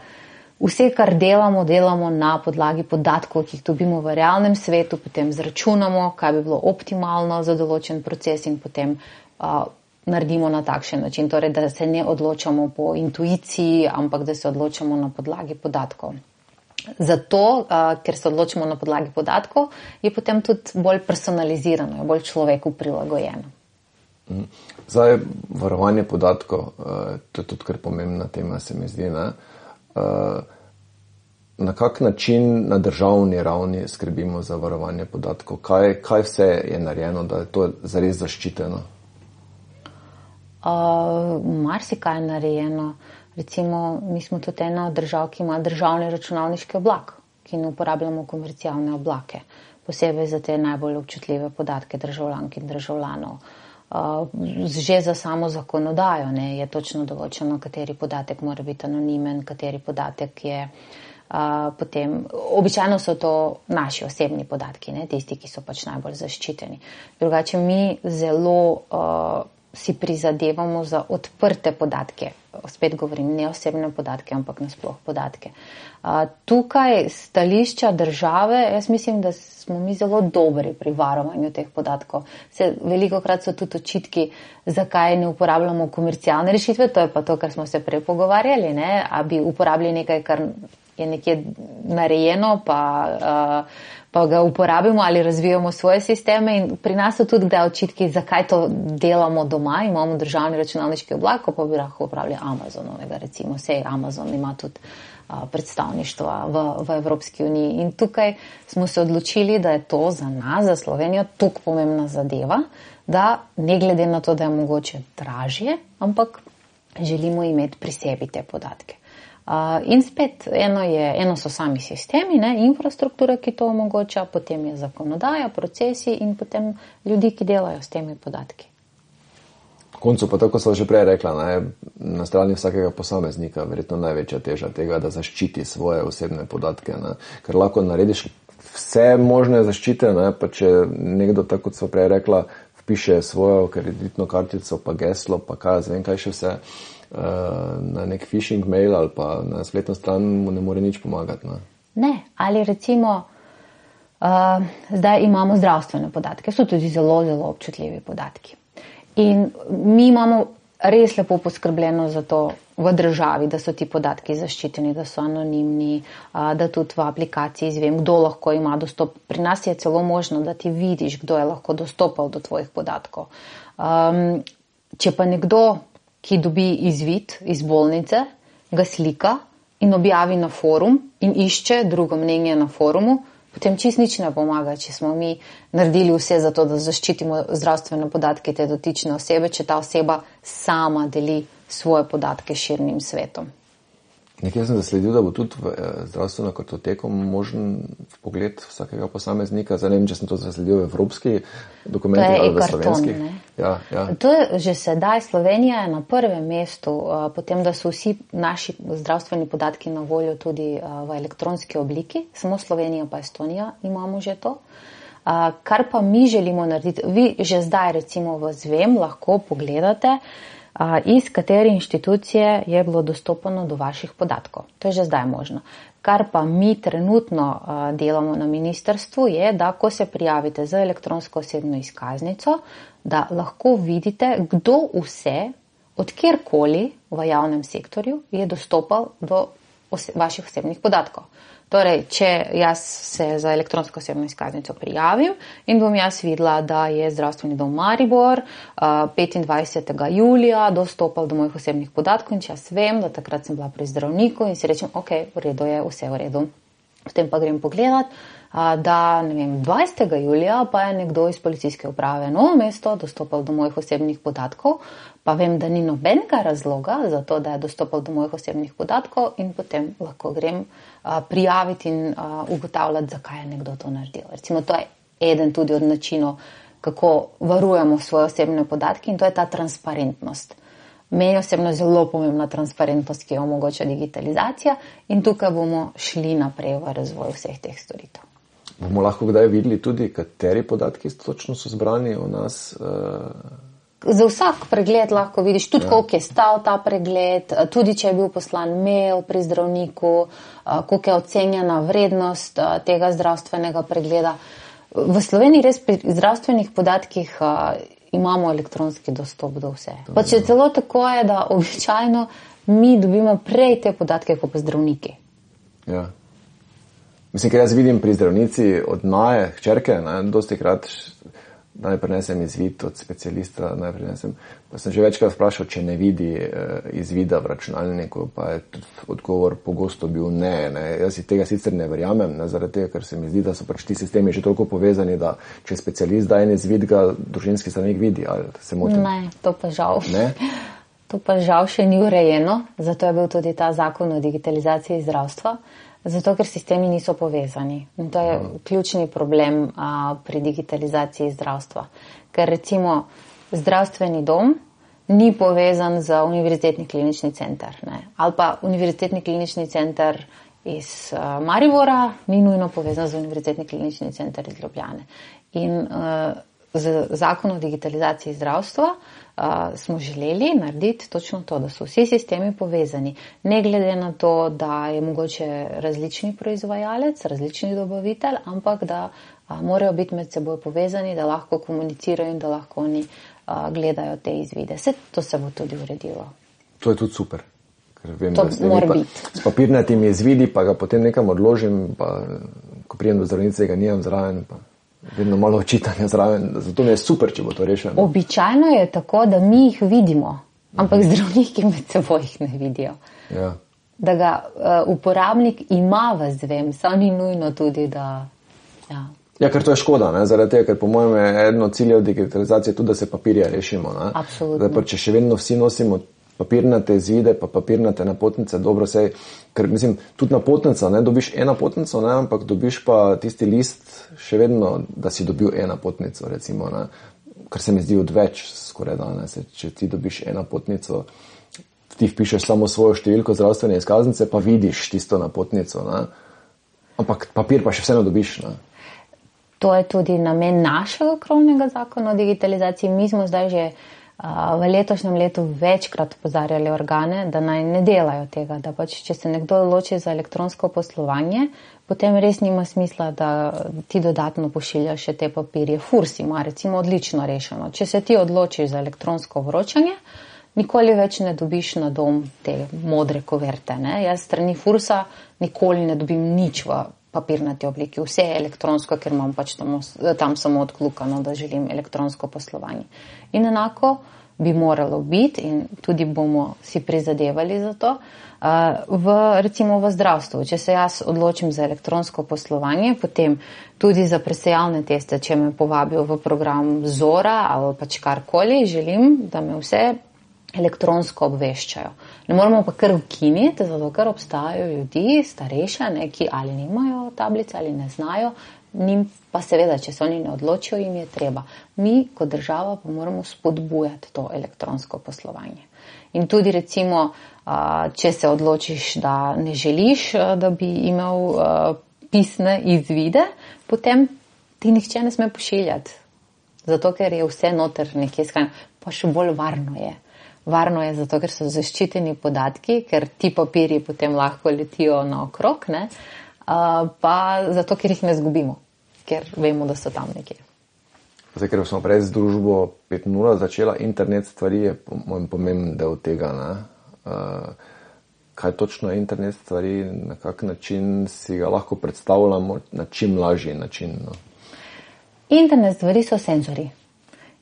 Speaker 2: vse, kar delamo na podlagi podatkov, ki jih dobimo v realnem svetu, potem zračunamo, kaj bi bilo optimalno za določen proces in potem naredimo na takšen način. Torej, da se ne odločamo po intuiciji, ampak da se odločamo na podlagi podatkov. Zato, ker se odločimo na podlagi podatkov, je potem tudi bolj personalizirano, bolj človeku prilagojeno.
Speaker 1: Zdaj, varovanje podatkov, to je tudi kar pomembna tema, se mi zdi, ne? Na kak način na državni ravni skrbimo za varovanje podatkov? Kaj vse je narejeno, da je to zares zaščiteno?
Speaker 2: Marsikaj je narejeno. Recimo, mi smo tudi ena od držav, ki ima državni računalniški oblak, ki ne uporabljamo komercialne oblake, posebej za te najbolj občutljive podatke državljank in državljanov. Že za samo zakonodajo je točno določeno, kateri podatek mora biti anonimen, kateri podatek je potem. Običajno so to naši osebni podatki, tisti, ki so pač najbolj zaščiteni. Drugače mi zelo si prizadevamo za odprte podatke. Spet govorim, ne osebne podatke, ampak nasploh podatke. Tukaj stališča države, jaz mislim, da smo mi zelo dobri pri varovanju teh podatkov. Velikokrat so tudi očitki, zakaj ne uporabljamo komercialne rešitve, to je pa to, kar smo se prej pogovarjali, ne? A bi uporabili nekaj, kar je nekje narejeno, pa ga uporabimo ali razvijamo svoje sisteme in pri nas so tudi kdaj očitki, zakaj to delamo doma, imamo državni računalniški oblak, pa bi lahko uporabljali Amazonovega, recimo, sej Amazon ima tudi predstavništva v Evropski uniji in tukaj smo se odločili, da je to za nas, za Slovenijo, toliko pomembna zadeva, da ne glede na to, da je mogoče dražje, ampak želimo imeti pri sebi te podatke. In spet, eno so sami sistemi, ne, infrastruktura, ki to omogoča, potem je zakonodaja, procesi in potem ljudi, ki delajo s temi podatki.
Speaker 1: V koncu pa tako so že prej rekla, na strani vsakega posameznika verjetno največja teža tega, da zaščiti svoje osebne podatke, ne, ker lahko narediš vse možne zaščite, ne, pa če nekdo, tako kot so prej rekla, vpiše svojo kreditno kartico, pa geslo, pa zvem kaj še vse, na nek phishing mail ali pa na spletno stran mu ne more nič pomagati.
Speaker 2: Ne, ali recimo zdaj imamo zdravstvene podatke, so tudi zelo, zelo občutljivi podatki. In mi imamo res lepo poskrbljeno za to v državi, da so ti podatki zaščiteni, da so anonimni, da tudi v aplikaciji izvem, kdo lahko ima dostop. Pri nas je celo možno, da ti vidiš, kdo je lahko dostopal do tvojih podatkov. Če pa nekdo, ki dobi izvid iz bolnice, ga slika in objavi na forum in išče drugo mnenje na forumu, potem čist nič ne pomaga, če smo mi naredili vse za to, da zaščitimo zdravstvene podatke te dotične osebe, če ta oseba sama deli svoje podatke širnim svetom.
Speaker 1: Nekaj sem zasledil, da bo tudi v zdravstveno kartoteko možen pogled vsakega posameznika. Zdaj ne vem, če sem to zasledil v evropski dokumentih ali v slovenskih. Ja.
Speaker 2: To je že sedaj. Slovenija je na prvem mestu, potem, da so vsi naši zdravstveni podatki na voljo tudi v elektronski obliki. Samo Slovenija pa Estonija imamo že to. Kar pa mi želimo narediti, vi že zdaj recimo v Zvem lahko pogledate, iz katere inštitucije je bilo dostopano do vaših podatkov. To je že zdaj možno. Kar pa mi trenutno delamo na ministrstvu je, da ko se prijavite za elektronsko osebno izkaznico, da lahko vidite, kdo vse, od kjerkoli v javnem sektorju je dostopal do vaših osebnih podatkov. Torej, če jaz se za elektronsko osebno izkaznico prijavim in bom jaz videla, da je zdravstveni dom Maribor 25. julija dostopal do mojih osebnih podatkov in če jaz vem, da takrat sem bila pri zdravniku in si rečem, ok, v redu je, vse v redu. Potem pa grem pogledat, da 20. julija pa je nekdo iz policijske uprave Novo mesto dostopal do mojih osebnih podatkov, pa vem, da ni nobenega razloga za to, da je dostopal do mojih osebnih podatkov in potem lahko grem prijaviti in ugotavljati, zakaj je nekdo to naredil. Recimo, to je eden tudi od načinov, kako varujemo svoje osebne podatke in to je ta transparentnost. Meni osebno zelo pomembna transparentnost, ki jo omogoča digitalizacija in tukaj bomo šli naprej v razvoj vseh teh storitev.
Speaker 1: Bomo lahko kdaj videli tudi, kateri podatki točno so zbrani o nas?
Speaker 2: Za vsak pregled lahko vidiš tudi, koliko je stal ta pregled, tudi če je bil poslan mail pri zdravniku, koliko je ocenjena vrednost tega zdravstvenega pregleda. V Sloveniji res pri zdravstvenih podatkih imamo elektronski dostop do vse. Pa če celo tako je, da običajno mi dobimo prej te podatke kot pa zdravniki.
Speaker 1: Ja. Mislim, ker jaz vidim pri zdravnici od Naje, hčerke, dosti krat naj prinesem izvid od specialista, pa sem že večkrat vprašal, če ne vidi izvida v računalniku, pa je odgovor pogosto bil ne. Jaz si tega sicer ne verjamem, zaradi tega, ker se mi zdi, da so pač ti sistemi že toliko povezani, da če specialist da en izvid, ga družinski zdravnik vidi, ali se motim?
Speaker 2: Ne, to pa žal.
Speaker 1: Ne?
Speaker 2: To pa žal še ni urejeno, zato je bil tudi ta zakon o digitalizaciji zdravstva, zato ker sistemi niso povezani. In to je ključni problem pri digitalizaciji zdravstva. Ker recimo zdravstveni dom ni povezan z univerzitetni klinični center. Ne? Ali pa univerzitetni klinični center iz Maribora ni nujno povezan z univerzitetni klinični center iz Ljubljane. In z zakonom o digitalizaciji zdravstva smo želeli narediti točno to, da so vsi sistemi povezani. Ne glede na to, da je mogoče različni proizvajalec, različni dobavitelj, ampak da morajo biti med seboj povezani, da lahko komunicirajo in da lahko oni gledajo te izvide. Vse to se bo tudi uredilo.
Speaker 1: To je tudi super. Ker vem,
Speaker 2: to mora biti.
Speaker 1: S papirnatimi izvidi pa ga potem nekam odložim, pa ko prijem do zdravnice, ga nimam zraven, pa vedno malo očitanja zraven. Zato mi je super, če bo to rešeno.
Speaker 2: Običajno je tako, da mi jih vidimo, ampak zdravniki med seboj jih ne vidijo.
Speaker 1: Ja.
Speaker 2: Da ga uporabnik ima v zvem, samo ni nujno tudi, da...
Speaker 1: Ja, ker to je škoda, ne? Zaradi tega, ker po mojem je eno ciljev digitalizacije tudi, da se papirja rešimo. Ne?
Speaker 2: Absolutno.
Speaker 1: Zdaj, če še vedno vsi nosimo papirnate izvide, pa papirnate napotnice, dobro sej, ker mislim, tudi napotnica, ne, dobiš eno napotnico, ne, ampak dobiš pa tisti list še vedno, da si dobil eno napotnico, recimo, ne, kar se mi zdi odveč skoraj danes, če ti dobiš eno napotnico, ti vpišeš samo svojo številko zdravstvene izkaznice, pa vidiš tisto napotnico, ne, ampak papir pa še vseeno dobiš, ne.
Speaker 2: To je tudi namen našega krovnega zakona o digitalizaciji. Mi smo zdaj že v letošnjem letu večkrat opozarjali organe, da naj ne delajo tega, da pač, če se nekdo odloči za elektronsko poslovanje, potem res nima smisla, da ti dodatno pošiljaš še te papirje. Furs ima recimo odlično rešeno. Če se ti odločiš za elektronsko vročanje, nikoli več ne dobiš na dom te modre koverte. Ne? Jaz strani Fursa nikoli ne dobim nič v papirnati obliki. Vse je elektronsko, ker imam pač tam samo odklukano, da želim elektronsko poslovanje. In enako bi moralo biti in tudi bomo si prizadevali za to, recimo v zdravstvu. Če se jaz odločim za elektronsko poslovanje, potem tudi za presejalne teste, če me povabijo v program Zora ali pač karkoli, želim, da me vse elektronsko obveščajo. Ne moramo pa kar ukiniti, zato ker obstajajo ljudi, starejše, ki ali nimajo tablice ali ne znajo, njim pa seveda, če se oni ne odločijo, jim je treba. Mi kot država pa moramo spodbujati to elektronsko poslovanje. In tudi recimo, če se odločiš, da ne želiš, da bi imel pisne izvide, potem ti nihče ne sme pošiljati. Zato ker je vse noter nekje shranjeno, pa še bolj varno je. Varno je zato, ker so zaščiteni podatki, ker ti papirji potem lahko letijo naokrog, ne? Pa zato, ker jih ne zgubimo, ker vemo, da so tam nekje.
Speaker 1: Zdaj, ker smo prej z družbo 5.0 začela, internet stvari je pomemben del tega. Ne? Kaj točno je internet stvari, na kak način si ga lahko predstavljamo, na čim lažji način? No?
Speaker 2: Internet stvari so senzori,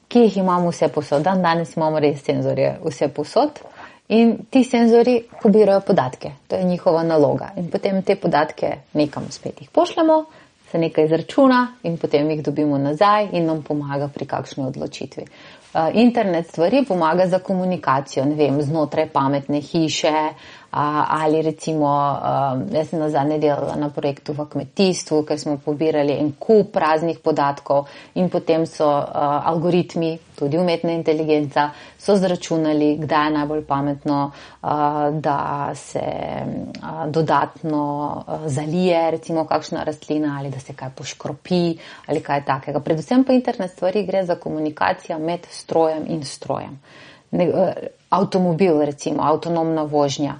Speaker 2: ki jih imamo vse posod. Danes imamo res senzorje vse posod in ti senzori pobirajo podatke. To je njihova naloga. In potem te podatke nekam spet jih pošljemo, se nekaj izračuna in potem jih dobimo nazaj in nam pomaga pri kakšni odločitvi. Internet stvari pomaga za komunikacijo, ne vem, znotraj pametne hiše ali recimo, jaz sem nazadnje delala na projektu v kmetijstvu, ker smo pobirali en kup raznih podatkov in potem so algoritmi, tudi umetna inteligenca, so zračunali, kdaj je najbolj pametno, da se dodatno zalije recimo kakšna rastlina ali da se kaj poškropi ali kaj takega. Predvsem pa internet stvari gre za komunikacijo med strojem in strojem. Avtomobil recimo, avtonomna vožnja.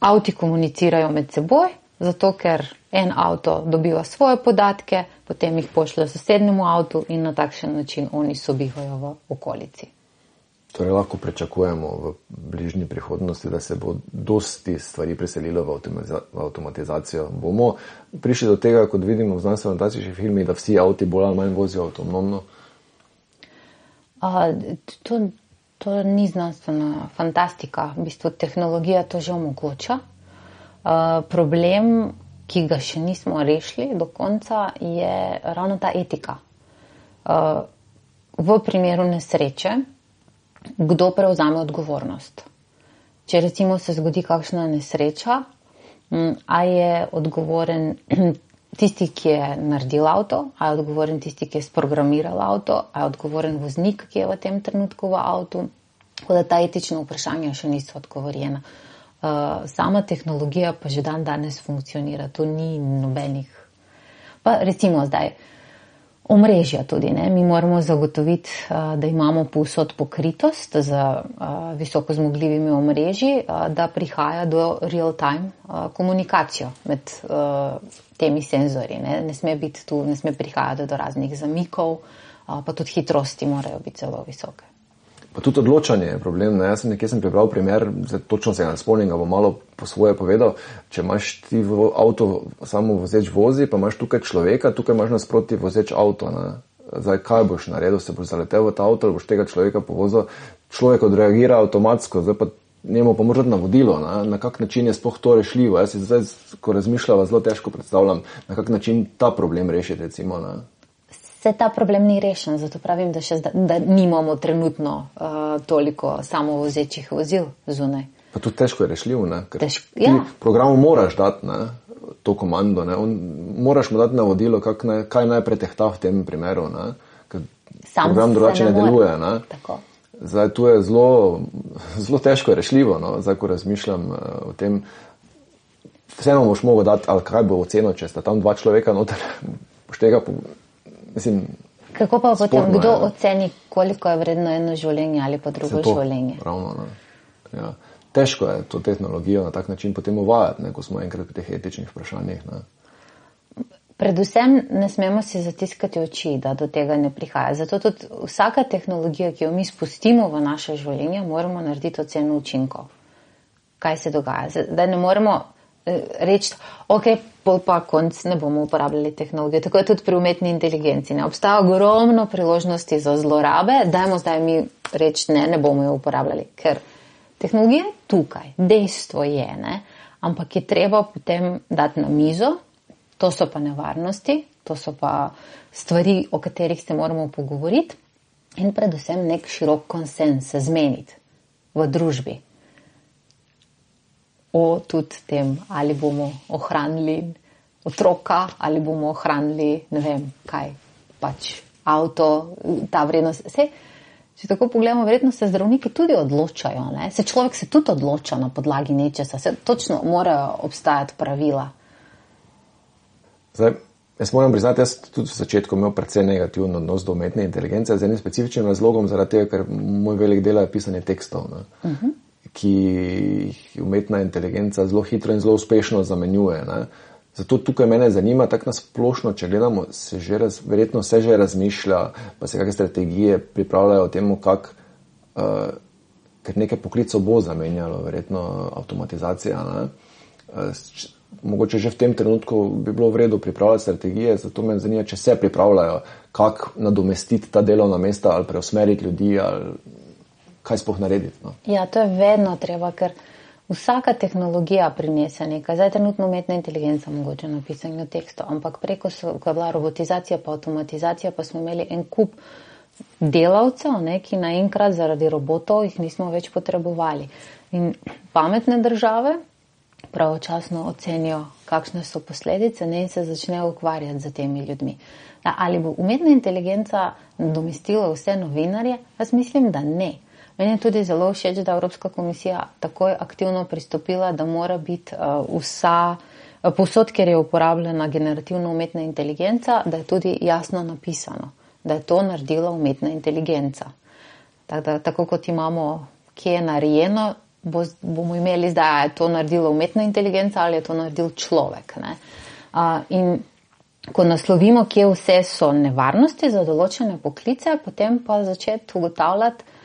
Speaker 2: Avti komunicirajo med seboj, zato ker en avto dobiva svoje podatke, potem jih pošlje sosednjemu avtu in na takšen način oni sobivajo v okolici.
Speaker 1: Torej lahko pričakujemo v bližnji prihodnosti, da se bo dosti stvari preselilo v avtomatizacijo. Bomo prišli do tega, kot vidimo v znanstveno-fantastičnih filmih, da vsi avti bolj ali manj vozijo avtonomno?
Speaker 2: To ni znanstvena fantastika. V bistvu tehnologija to že omogoča. Problem, ki ga še nismo rešili do konca, je ravno ta etika. V primeru nesreče, kdo prevzame odgovornost? Če recimo se zgodi kakšna nesreča, a je odgovoren tisti, ki je naredil avto, a je odgovoren tisti, ki je sprogramiral avto, a je odgovoren voznik, ki je v tem trenutku v avtu. Tako da ta etična vprašanja še niso odgovorjena. Sama tehnologija pa že danes funkcionira, tu ni nobenih. Pa recimo zdaj, Omrežja tudi, ne. Mi moramo zagotoviti, da imamo povsod pokritost z visoko zmogljivimi omrežji, da prihaja do real-time komunikacijo med temi senzorji, ne. Ne sme biti tu, ne sme prihajati do raznih zamikov, pa tudi hitrosti morajo biti zelo visoke.
Speaker 1: Pa tudi odločanje je problem. Ne? Jaz sem prebral primer, točno se ga ne spomnim, ga bom malo po svoje povedal. Če imaš ti v avto samo vozeč vozi, pa imaš tukaj človeka, tukaj imaš nasproti vozeč avto. Ne? Zdaj, kaj boš naredil? Se boš zaletel v ta avto ali boš tega človeka povozil? Človek odreagira avtomatsko, zdaj pa njemu pa moraš navodilo, na kak način je sploh to rešljivo. Jaz si zdaj, ko razmišljava, zelo težko predstavljam, na kak način ta problem rešiti, recimo. Ne?
Speaker 2: Se ta problem ni rešen, zato pravim, da nimamo trenutno toliko samovozečih vozil zunaj.
Speaker 1: Pa tudi težko je rešljiv, ne? Ker ti programu moraš dati, ne? To komando, ne? Moraš mu dati navodilo, kaj naj pretehta v tem primeru, ne? Ker program drugače ne deluje. Ne?
Speaker 2: Tako.
Speaker 1: Zdaj, tu je zelo težko rešljivo, no? Zdaj, ko razmišljam o tem, vseeno boš mogel dati, ali kaj bo oceno, če sta tam 2 človeka noter, boš tega mislim,
Speaker 2: kako pa potem,
Speaker 1: sporno,
Speaker 2: kdo oceni, koliko je vredno eno življenje ali pa drugo življenje?
Speaker 1: Ravno, ne. Ja. Težko je to tehnologijo na tak način potem uvajati, ne, ko smo enkrat pri teh etičnih vprašanjih. Ne.
Speaker 2: Predvsem ne smemo si zatiskati oči, da do tega ne prihaja. Zato tudi vsaka tehnologija, ki jo mi spustimo v naše življenje, moramo narediti oceno učinkov. Kaj se dogaja? Zdaj ne moremo reči, ok, pa konc ne bomo uporabljali tehnologije. Tako je tudi pri umetni inteligenci. Ne? Obstaja ogromno priložnosti za zlorabe, dajmo zdaj mi reči, ne bomo jo uporabljali, ker tehnologija je tukaj, dejstvo je, ne? Ampak je treba potem dati na mizo, to so pa nevarnosti, to so pa stvari, o katerih se moramo pogovoriti in predvsem nek širok konsens se zmeniti v družbi. O tudi tem, ali bomo ohranili otroka, ali bomo ohranili, ne vem, kaj, pač avto, ta vrednost. Če tako pogledamo, verjetno se zdravniki tudi odločajo, ne? Človek se tudi odloča na podlagi nečesa, točno morajo obstajati pravila.
Speaker 1: Zdaj, jaz moram priznati, jaz tudi v začetku imel precej negativen odnos do umetne inteligence, z enim specifičnim razlogom, zaradi tega, ker moj velik del je pisanje tekstov, ne? Ki jih umetna inteligenca zelo hitro in zelo uspešno zamenjuje. Ne? Zato tukaj mene zanima, tako nasplošno, če gledamo, verjetno se že razmišlja, pa se kakšne strategije pripravljajo o tem, ker nekaj poklicov bo zamenjalo, verjetno avtomatizacija. Ne? Mogoče že v tem trenutku bi bilo v redu pripravljati strategije, zato me zanima, če se pripravljajo, kako nadomestiti ta delovna mesta ali preusmeriti ljudi ali kaj sploh narediti. No?
Speaker 2: Ja, to je vedno treba, ker vsaka tehnologija prinese nekaj. Zdaj trenutno umetna inteligenca mogoče na pisanju tekstov, ampak preko ko je bila robotizacija pa avtomatizacija, pa smo imeli en kup delavcev, ne, ki naenkrat zaradi robotov jih nismo več potrebovali. In pametne države pravočasno ocenijo, kakšne so posledice, ne, in se začnejo ukvarjati z temi ljudmi. Ali bo umetna inteligenca nadomestila vse novinarje? Jaz mislim, da ne. Meni je tudi zelo všeč, da Evropska komisija takoj aktivno pristopila, da mora biti povsod, kjer je uporabljena generativna umetna inteligenca, da je tudi jasno napisano, da je to naredila umetna inteligenca. Tako kot imamo, kje je narejeno, bomo imeli zdaj, je to naredila umetna inteligenca ali je to naredil človek. Ne? In ko naslovimo, kje vse so nevarnosti za določene poklice, potem pa začeti ugotavljati,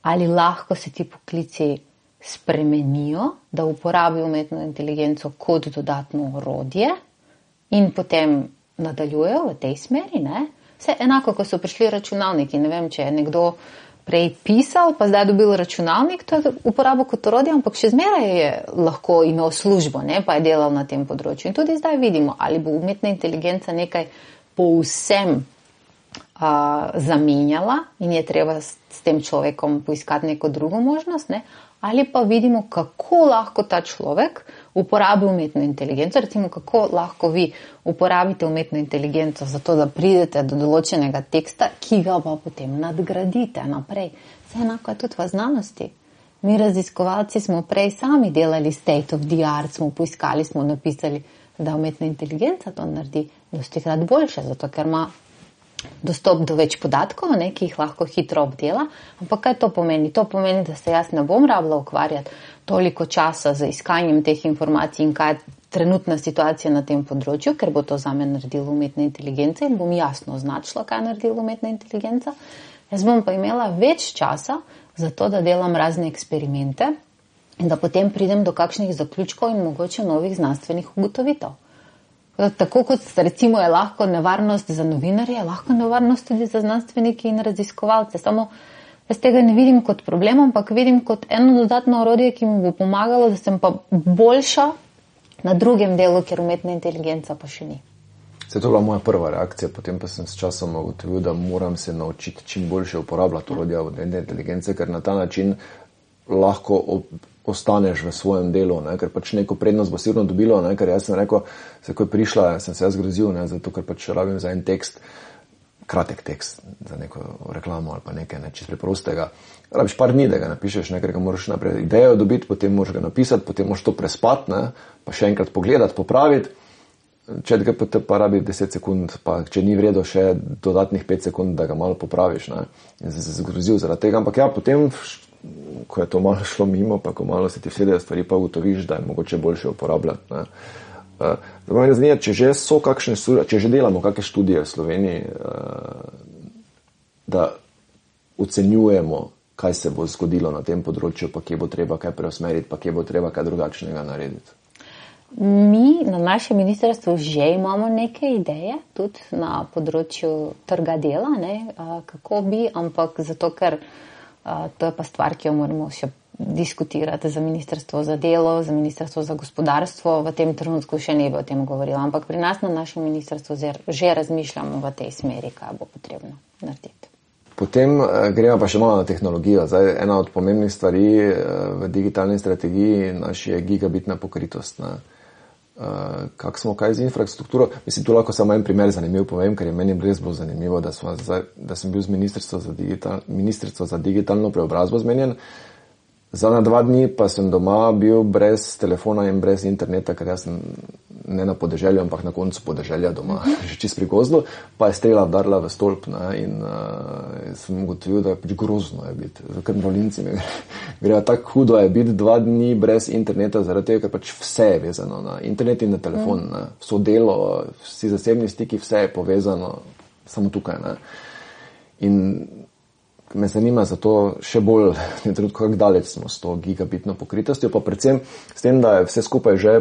Speaker 2: ali lahko se ti poklici spremenijo, da uporabijo umetno inteligenco kot dodatno orodje in potem nadaljujejo v tej smeri. Ne? Vse enako, ko so prišli računalniki. Ne vem, če je nekdo prej pisal, pa zdaj dobil računalnik, to je uporabo kot orodje, ampak še zmeraj je lahko imel službo, ne? Pa je delal na tem področju. In tudi zdaj vidimo, ali bo umetna inteligenca nekaj povsem zamenjala in je treba s tem človekom poiskati neko drugo možnost, ne? Ali pa vidimo, kako lahko ta človek uporabi umetno inteligenco, recimo kako lahko vi uporabite umetno inteligenco za to, da pridete do določenega teksta, ki ga pa potem nadgradite naprej. Vse enako je tudi v znanosti. Mi raziskovalci smo prej sami delali state of the art, smo poiskali, smo napisali, da umetna inteligenca to naredi dostikrat boljše, zato ker ima dostop do več podatkov, ne, ki jih lahko hitro obdela. Ampak kaj to pomeni? To pomeni, da se jaz ne bom rabila ukvarjati toliko časa za iskanjem teh informacij in kaj je trenutna situacija na tem področju, ker bo to zame naredila umetna inteligenca in bom jasno označila, kaj je naredila umetna inteligenca. Jaz bom pa imela več časa za to, da delam razne eksperimente in da potem pridem do kakšnih zaključkov in mogoče novih znanstvenih ugotovitev. Tako kot recimo je lahko nevarnost za novinarje, je lahko nevarnost tudi za znanstvenike in raziskovalce. Samo jaz tega ne vidim kot problem, ampak vidim kot eno dodatno orodje, ki mi bo pomagalo, da sem pa boljša na drugem delu, ker umetna inteligenca pa še ni.
Speaker 1: To je bila moja prva reakcija, potem pa sem s časom ugotovil, da moram se naučiti čim boljše uporabljati orodja umetne inteligence, ker na ta način lahko ostaneš v svojem delu, ne, ker pač neko prednost bo sigurno dobilo, ne, ker jaz sem rekel, ko je prišla, sem se jaz grozil, ne, zato ker pač rabim za en tekst, kratek tekst, za neko reklamo ali pa nekaj, ne, čisto preprostega. Rabiš par dni, da ga napišeš, ne, ker ga moraš naprej idejo dobiti, potem moraš ga napisati, potem moraš to prespati, ne, pa še enkrat pogledati, popraviti. ChatGPT pa rabi 10 sekund, pa če ni vredo še dodatnih 5 sekund, da ga malo popraviš, ne. In sem se zgrozil zaradi tega, ampak ja, potem, ko je to malo šlo mimo, pa ko malo se ti vsedejo stvari, pa ugotoviš, da je mogoče boljše uporabljati, ne. Zdaj me zanima, če že so kakšne študije, če že delamo kakšne študije v Sloveniji, da ocenjujemo, kaj se bo zgodilo na tem področju, pa kje bo treba kaj preusmeriti, pa kje bo treba kaj drugačnega narediti.
Speaker 2: Mi na našem ministrstvu že imamo neke ideje, tudi na področju trga dela, ne, kako bi, ampak zato, ker to je pa stvar, ki jo moramo še diskutirati za ministrstvo za delo, za ministrstvo za gospodarstvo, v tem trenutku še ne bi o tem govorila, ampak pri nas na našem ministrstvu že razmišljamo v tej smeri, kaj bo potrebno narediti.
Speaker 1: Potem gremo pa še malo na tehnologijo. Zdaj, ena od pomembnih stvari v digitalni strategiji naši je gigabitna pokritost, ne. Kako smo kaj z infrastrukturo? Mislim, tu lahko samo en primer zanimiv povem, ker je meni res bilo zanimivo, da sem bil z ministrstvo za digitalno preobrazbo zmenjen. Za na 2 dni pa sem doma bil brez telefona in brez interneta, ker jaz sem ne na podeželju, ampak na koncu podeželja doma, že čist pri gozdu, pa je strela vdarila v stolp, ne, in sem ugotovil, da je pač grozno je biti, ker mrolinci mi gre tako hudo je biti 2 dni brez interneta, zaradi tega, ker pač vse je vezano na internet in na telefon, ne, vso delo, vsi zasebni stiki, vse je povezano samo tukaj, ne. In me zanima zato še bolj, kako daleč smo s to gigabitno pokritostjo, pa predvsem s tem, da je vse skupaj že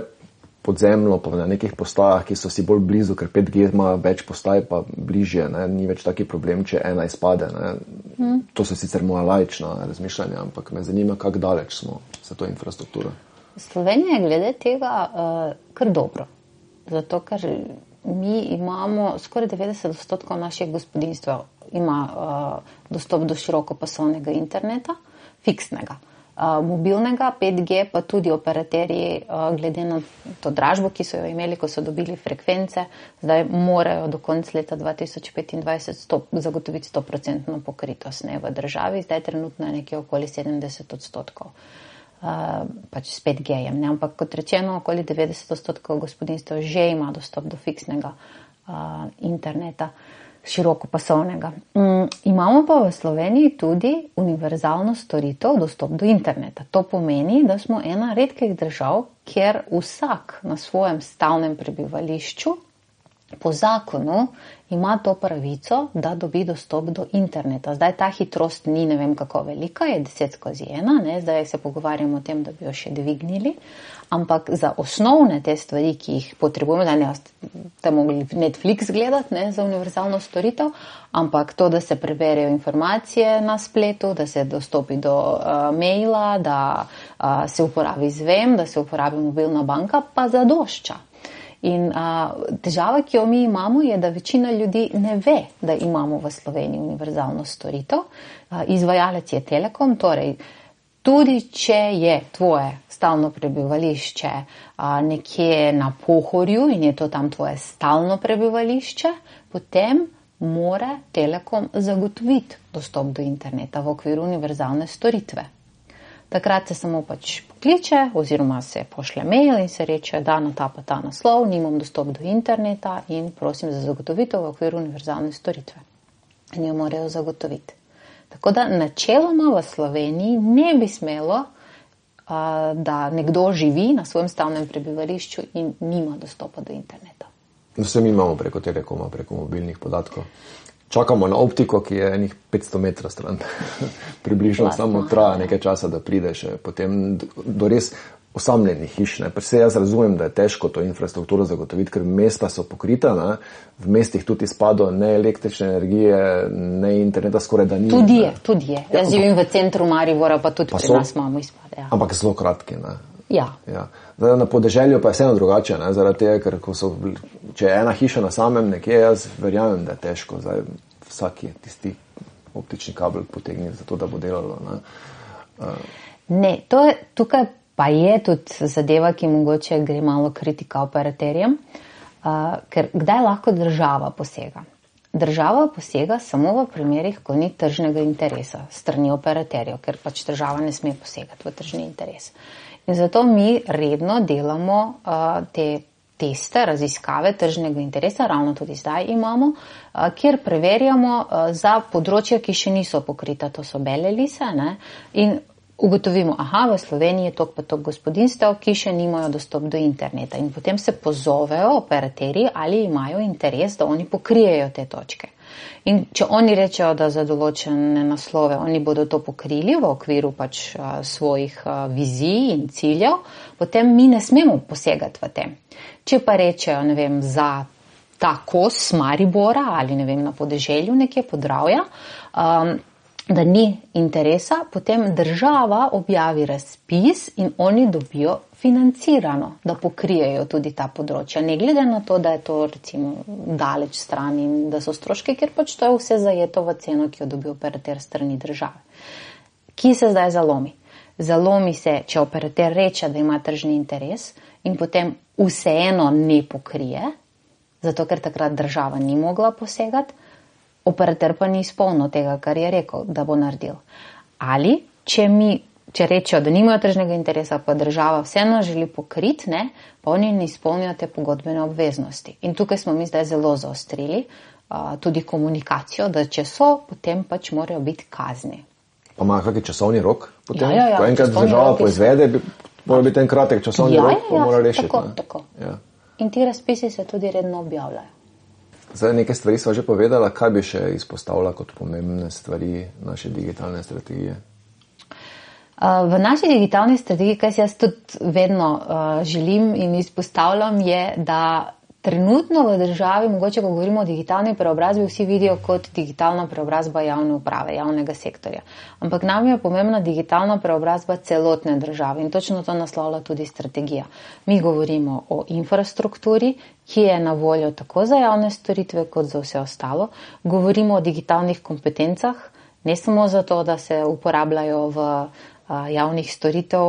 Speaker 1: podzemno, pa na nekih postajah, ki so si bolj blizu, ker 5G ima več postaj, pa bližje, ne, ni več taki problem, če ena izpade, ne. To so sicer moja laična razmišljanja, ampak me zanima, kako daleč smo za to infrastrukturo.
Speaker 2: Slovenija je glede tega kar dobro, zato ker mi imamo skoraj 90% naših gospodinjstev ima dostop do širokopasovnega interneta, fiksnega. Mobilnega, 5G, pa tudi operaterji, glede na to dražbo, ki so jo imeli, ko so dobili frekvence, zdaj morajo do konca leta 2025 zagotoviti 100% pokritost, ne, v državi, zdaj trenutno je nekje okoli 70%. Pač s 5G-jem, ne, ampak kot rečeno, okoli 90% gospodinjstev že ima dostop do fiksnega interneta, širokopasovnega. Imamo pa v Sloveniji tudi univerzalno storitev dostop do interneta. To pomeni, da smo ena redkih držav, kjer vsak na svojem stalnem prebivališču po zakonu ima to pravico, da dobi dostop do interneta. Zdaj ta hitrost ni ne vem kako velika, je 10/1, ne, zdaj se pogovarjamo o tem, da bi jo še dvignili, ampak za osnovne te stvari, ki jih potrebujemo, da ne ste mogli Netflix gledati, ne, za univerzalno storitev, ampak to, da se preberejo informacije na spletu, da se dostopi do maila, da se uporabi Zvem, da se uporabi mobilna banka, pa zadošča. In težava, ki jo mi imamo, je, da večina ljudi ne ve, da imamo v Sloveniji univerzalno storitev. Izvajalec je Telekom, torej tudi če je tvoje stalno prebivališče nekje na Pohorju in je to tam tvoje stalno prebivališče, potem mora Telekom zagotoviti dostop do interneta v okviru univerzalne storitve. Takrat se samo pač pokliče oziroma se pošlje mail in se reče, da na ta naslov nimam dostop do interneta in prosim za zagotovitev v okviru univerzalne storitve. in jo morajo zagotoviti. Tako da načeloma v Sloveniji ne bi smelo, da nekdo živi na svojem stalnem prebivališču in nima dostopa do interneta.
Speaker 1: Vse mi imamo preko Telekoma, preko mobilnih podatkov. Čakamo na optiko, ki je enih 500 metrov stran. Približno samo traja nekaj časa, da prideš potem do res osamljenih hiš. Vse jaz razumem, da je težko to infrastrukturo zagotoviti, ker mesta so pokrita, ne? V mestih tudi izpado ne električne energije, ne interneta skoraj da ni.
Speaker 2: Tudi je. Jaz živim v centru Maribora, pa tudi pri nas imamo izpade. Ja.
Speaker 1: Ampak zelo kratki, ne?
Speaker 2: Ja.
Speaker 1: Zdaj, na podeželju pa je vseeno drugače, ne? Zaradi tega, ker če je ena hiša na samem nekje, jaz verjamem, da je težko. Zdaj, vsak je tisti optični kabel potegnil za to, da bo delalo.
Speaker 2: Ne, tukaj pa je tudi zadeva, ki mogoče gre malo kritika operaterjem, ker kdaj lahko država posega? Država posega samo v primerih, ko ni tržnega interesa strani operaterjev, ker pač država ne sme posegati v tržni interes. In zato mi redno delamo te teste, raziskave tržnega interesa, ravno tudi zdaj imamo, kjer preverjamo za področja, ki še niso pokrita, to so bele lise, ne, in ugotovimo, v Sloveniji je toliko pa toliko gospodinstev, ki še nimajo dostop do interneta in potem se pozovejo operaterji, ali imajo interes, da oni pokrijejo te točke. In če oni rečejo, da za določene naslove oni bodo to pokrili v okviru pač svojih vizij in ciljev, potem mi ne smemo posegati v tem. Če pa rečejo, ne vem, za ta kos Maribora ali ne vem, na podeželju nekje Podravja, da ni interesa, potem država objavi razpis in oni dobijo financirano, da pokrijejo tudi ta področja. Ne glede na to, da je to recimo daleč stran in da so stroške, ker pač to je vse zajeto v ceno, ki jo dobi operater strani države. Kje se zdaj zalomi? Zalomi se, če operater reče, da ima tržni interes in potem vseeno ne pokrije, zato ker takrat država ni mogla posegati, operater pa ni izpolnil tega, kar je rekel, da bo naredil. Ali, če rečejo, da nimajo tržnega interesa, pa država vseeno želi pokriti, ne, pa oni ne izpolnijo te pogodbene obveznosti. In tukaj smo mi zdaj zelo zaostrili tudi komunikacijo, da če so, potem pač morajo biti kazni.
Speaker 1: Pa ima kakšen časovni rok? Potem,
Speaker 2: ja,
Speaker 1: ko enkrat država poizvede, mora biti en kratek časovni rok, pa mora rešiti.
Speaker 2: Tako. Ja. In ti razpisi se tudi redno objavljajo.
Speaker 1: Zdaj, nekaj stvari sva že povedala, kaj bi še izpostavila kot pomembne stvari naše digitalne strategije?
Speaker 2: V naši digitalni strategiji, kaj si jaz tudi vedno želim in izpostavljam, je, da trenutno v državi, mogoče ko govorimo o digitalni preobrazbi, vsi vidijo kot digitalna preobrazba javne uprave, javnega sektorja. Ampak nam je pomembna digitalna preobrazba celotne države in točno to naslavlja tudi strategija. Mi govorimo o infrastrukturi, ki je na voljo tako za javne storitve kot za vse ostalo. Govorimo o digitalnih kompetencah, ne samo zato, da se uporabljajo v javnih storitev,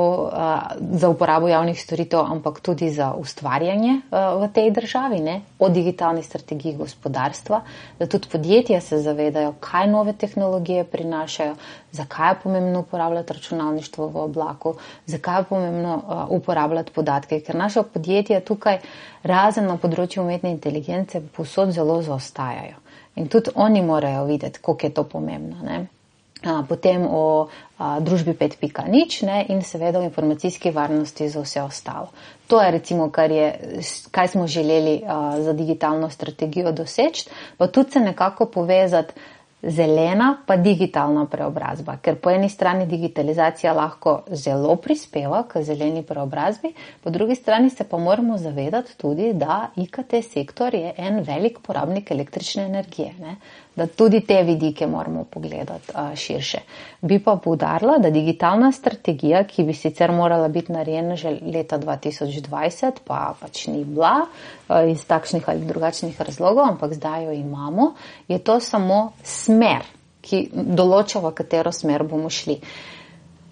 Speaker 2: za uporabo javnih storitev, ampak tudi za ustvarjanje v tej državi, ne? O digitalni strategiji gospodarstva, da tudi podjetja se zavedajo, kaj nove tehnologije prinašajo, zakaj je pomembno uporabljati računalništvo v oblaku, zakaj je pomembno uporabljati podatke, ker naša podjetja tukaj razen na področju umetne inteligence povsod zelo zaostajajo. In tudi oni morajo videti, koliko je to pomembno, ne? Potem o družbi 5.0 in seveda o informacijski varnosti za vse ostalo. To je recimo, kaj smo želeli za digitalno strategijo doseči, pa tudi se nekako povezati zelena pa digitalna preobrazba, ker po eni strani digitalizacija lahko zelo prispeva k zeleni preobrazbi, po drugi strani se pa moramo zavedati tudi, da IKT sektor je en velik porabnik električne energije, ne? Da tudi te vidike moramo pogledati širše. Bi pa poudarila, da digitalna strategija, ki bi sicer morala biti narejena že leta 2020, pa pač ni bila iz takšnih ali drugačnih razlogov, ampak zdaj jo imamo, je to samo smer, ki določa, v katero smer bomo šli.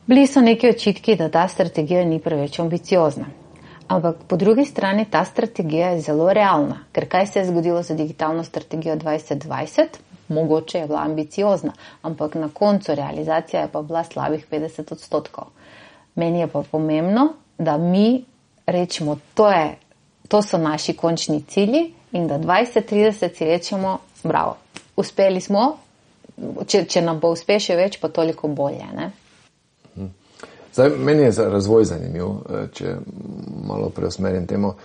Speaker 2: Bili so neki očitki, da ta strategija ni preveč ambiciozna. Ampak po drugi strani ta strategija je zelo realna, ker kaj se je zgodilo za digitalno strategijo 2020? Mogoče je bila ambiciozna, ampak na koncu realizacija je pa bila slabih 50%. Meni je pa pomembno, da mi rečemo, to so naši končni cilji in da 2030 si rečemo, bravo, uspeli smo, če nam bo uspešje več, pa toliko bolje. Ne?
Speaker 1: Zdaj, meni je razvoj zanimiv, če malo preusmerim temo.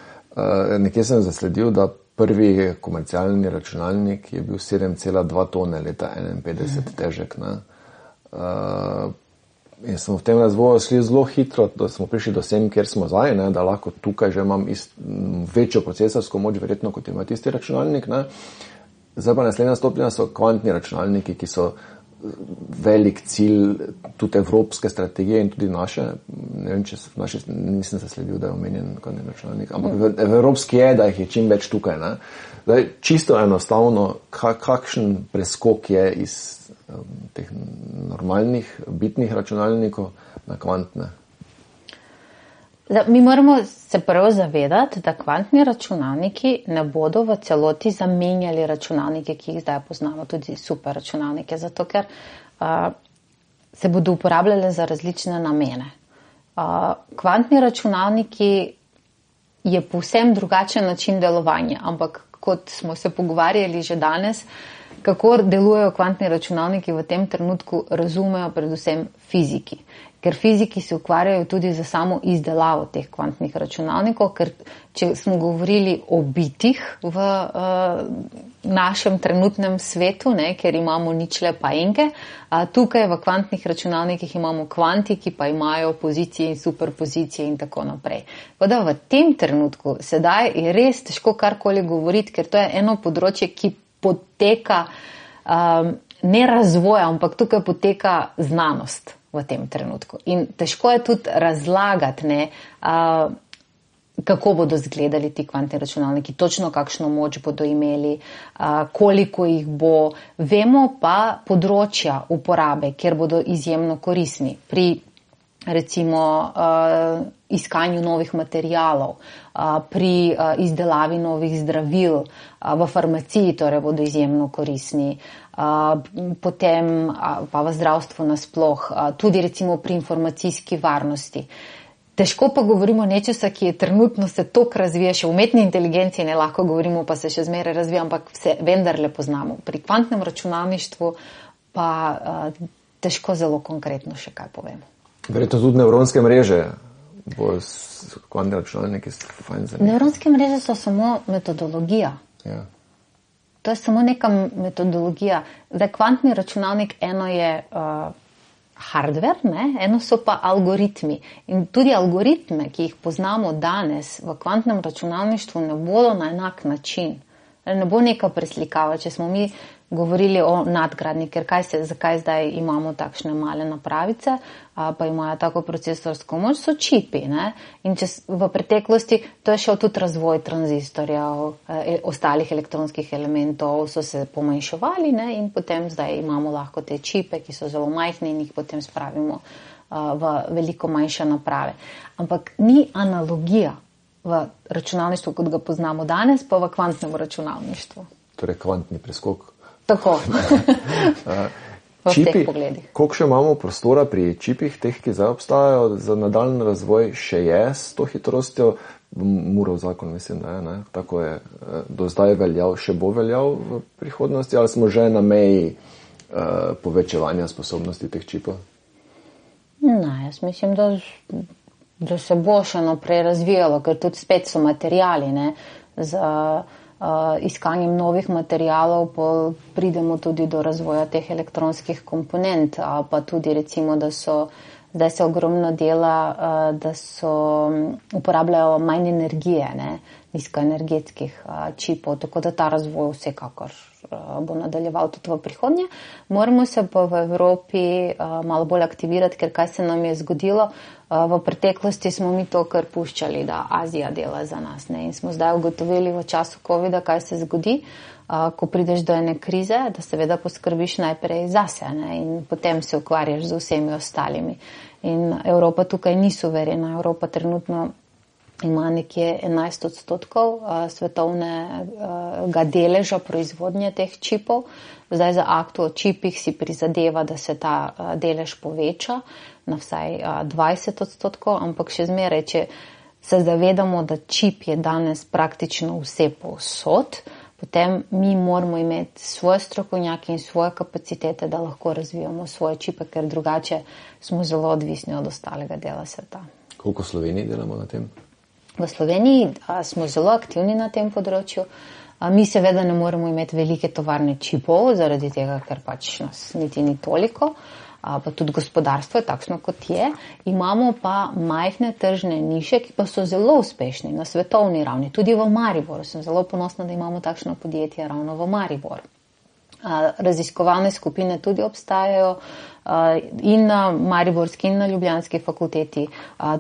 Speaker 1: Nekje sem zasledil, da prvi komercialni računalnik je bil 7,2 tone leta 51 težek. Ne? In smo v tem razvoju šli zelo hitro, da smo prišli do sem, kjer smo zdaj, ne? Da lahko tukaj že imam večjo procesorsko moč, verjetno, kot ima tisti računalnik. Ne? Zdaj pa naslednja stopnja so kvantni računalniki, ki so velik cilj tudi evropske strategije in tudi naše. Ne vem, če v naši nisem zasledil, da je omenjen kvantni računalnik, ampak v evropski je, da jih je čim več tukaj. Ne? Zdaj, čisto enostavno, kakšen preskok je iz teh normalnih bitnih računalnikov na kvantne?
Speaker 2: Mi moramo se prvo zavedati, da kvantni računalniki ne bodo v celoti zamenjali računalnike, ki jih zdaj poznamo, tudi super računalnike, zato ker se bodo uporabljali za različne namene. Kvantni računalniki je povsem drugačen način delovanja, ampak kot smo se pogovarjali že danes, kako delujejo kvantni računalniki v tem trenutku, razumejo predvsem fiziki. Ker fiziki se ukvarjajo tudi za samo izdelavo teh kvantnih računalnikov, ker če smo govorili o bitih v našem trenutnem svetu, ne, ker imamo ničle pa enke, tukaj v kvantnih računalnikih imamo kvanti, ki pa imajo pozicije in superpozicije in tako naprej. Voda v tem trenutku sedaj je res težko karkoli govoriti, ker to je eno področje, ki poteka ne razvoja, ampak tukaj poteka znanost v tem trenutku. In težko je tudi razlagati, ne, kako bodo izgledali ti kvantni računalniki, točno kakšno moč bodo imeli, koliko jih bo. Vemo pa področja uporabe, kjer bodo izjemno koristni pri recimo iskanju novih materialov, pri izdelavi novih zdravil, v farmaciji torej bodo izjemno koristni, potem pa v zdravstvu nasploh, tudi recimo pri informacijski varnosti. Težko pa govorimo nečesa, ki je trenutno se toliko razvija, še v umetni inteligenciji ne lahko govorimo, pa se še zmeraj razvija, ampak se vendarle poznamo. Pri kvantnem računalništvu pa težko zelo konkretno še kaj povemo.
Speaker 1: Verjetno tudi nevronske mreže bo s kvantni računalniki fajn zanimivo.
Speaker 2: Nevronske mreže so samo metodologija.
Speaker 1: Ja.
Speaker 2: To je samo neka metodologija. Zdaj, kvantni računalnik, eno je hardware, ne? Eno so pa algoritmi. In tudi algoritme, ki jih poznamo danes v kvantnem računalništvu, ne bodo na enak način. Ne bo neka preslikava, če smo mi govorili o nadgradnji, ker zakaj zdaj imamo takšne male napravice, pa imajo tako procesorsko moč, so čipi. Ne? In v preteklosti to je šel tudi razvoj tranzistorjev, ostalih elektronskih elementov so se pomanjševali, ne? In potem zdaj imamo lahko te čipe, ki so zelo majhni in jih potem spravimo v veliko manjše naprave. Ampak ni analogija v računalništvu, kot ga poznamo danes, pa v kvantnem računalništvu.
Speaker 1: Torej kvantni preskok.
Speaker 2: Tako.
Speaker 1: Čipi, koliko še imamo prostora pri čipih, teh, ki zdaj obstajajo, za nadaljni razvoj še je s to hitrostjo? Murov zakon, mislim, da je, ne? Tako je do zdaj veljal, še bo veljal v prihodnosti, ali smo že na meji povečevanja sposobnosti teh čipov?
Speaker 2: Ne, jaz mislim, da se bo še naprej razvijalo, ker tudi spet so materijali, ne, za iskanjem novih materialov pridemo tudi do razvoja teh elektronskih komponent, pa tudi recimo, da so zdaj se ogromno dela, da so uporabljajo manj energije, ne, nizkoenergetskih čipov, tako da ta razvoj vsekakor bo nadaljeval tudi v prihodnje. Moramo se pa v Evropi malo bolj aktivirati, ker kaj se nam je zgodilo. V preteklosti smo mi to kar puščali, da Azija dela za nas, ne? In smo zdaj ugotovili v času COVID-a, kaj se zgodi, ko prideš do ene krize, da seveda poskrbiš najprej zase, ne? In potem se ukvarjaš z vsemi ostalimi. In Evropa tukaj ni suverena. Evropa trenutno ima nekje 11% svetovnega deleža proizvodnje teh čipov. Zdaj za akt o čipih si prizadeva, da se ta delež poveča na vsaj 20%, ampak še zmeraj, če se zavedamo, da čip je danes praktično vse povsod, potem mi moramo imeti svoje strokovnjake in svoje kapacitete, da lahko razvijamo svoje čipe, ker drugače smo zelo odvisni od ostalega dela sveta.
Speaker 1: Koliko v Sloveniji delamo na tem?
Speaker 2: V Sloveniji smo zelo aktivni na tem področju. Mi seveda ne moremo imeti velike tovarne čipov, zaradi tega, ker pač nas niti ni toliko, pa tudi gospodarstvo je takšno, kot je. Imamo pa majhne tržne niše, ki pa so zelo uspešni na svetovni ravni. Tudi v Mariboru sem zelo ponosna, da imamo takšno podjetje ravno v Mariboru. Raziskovalne skupine tudi obstajajo in na Mariborski in na Ljubljanski fakulteti.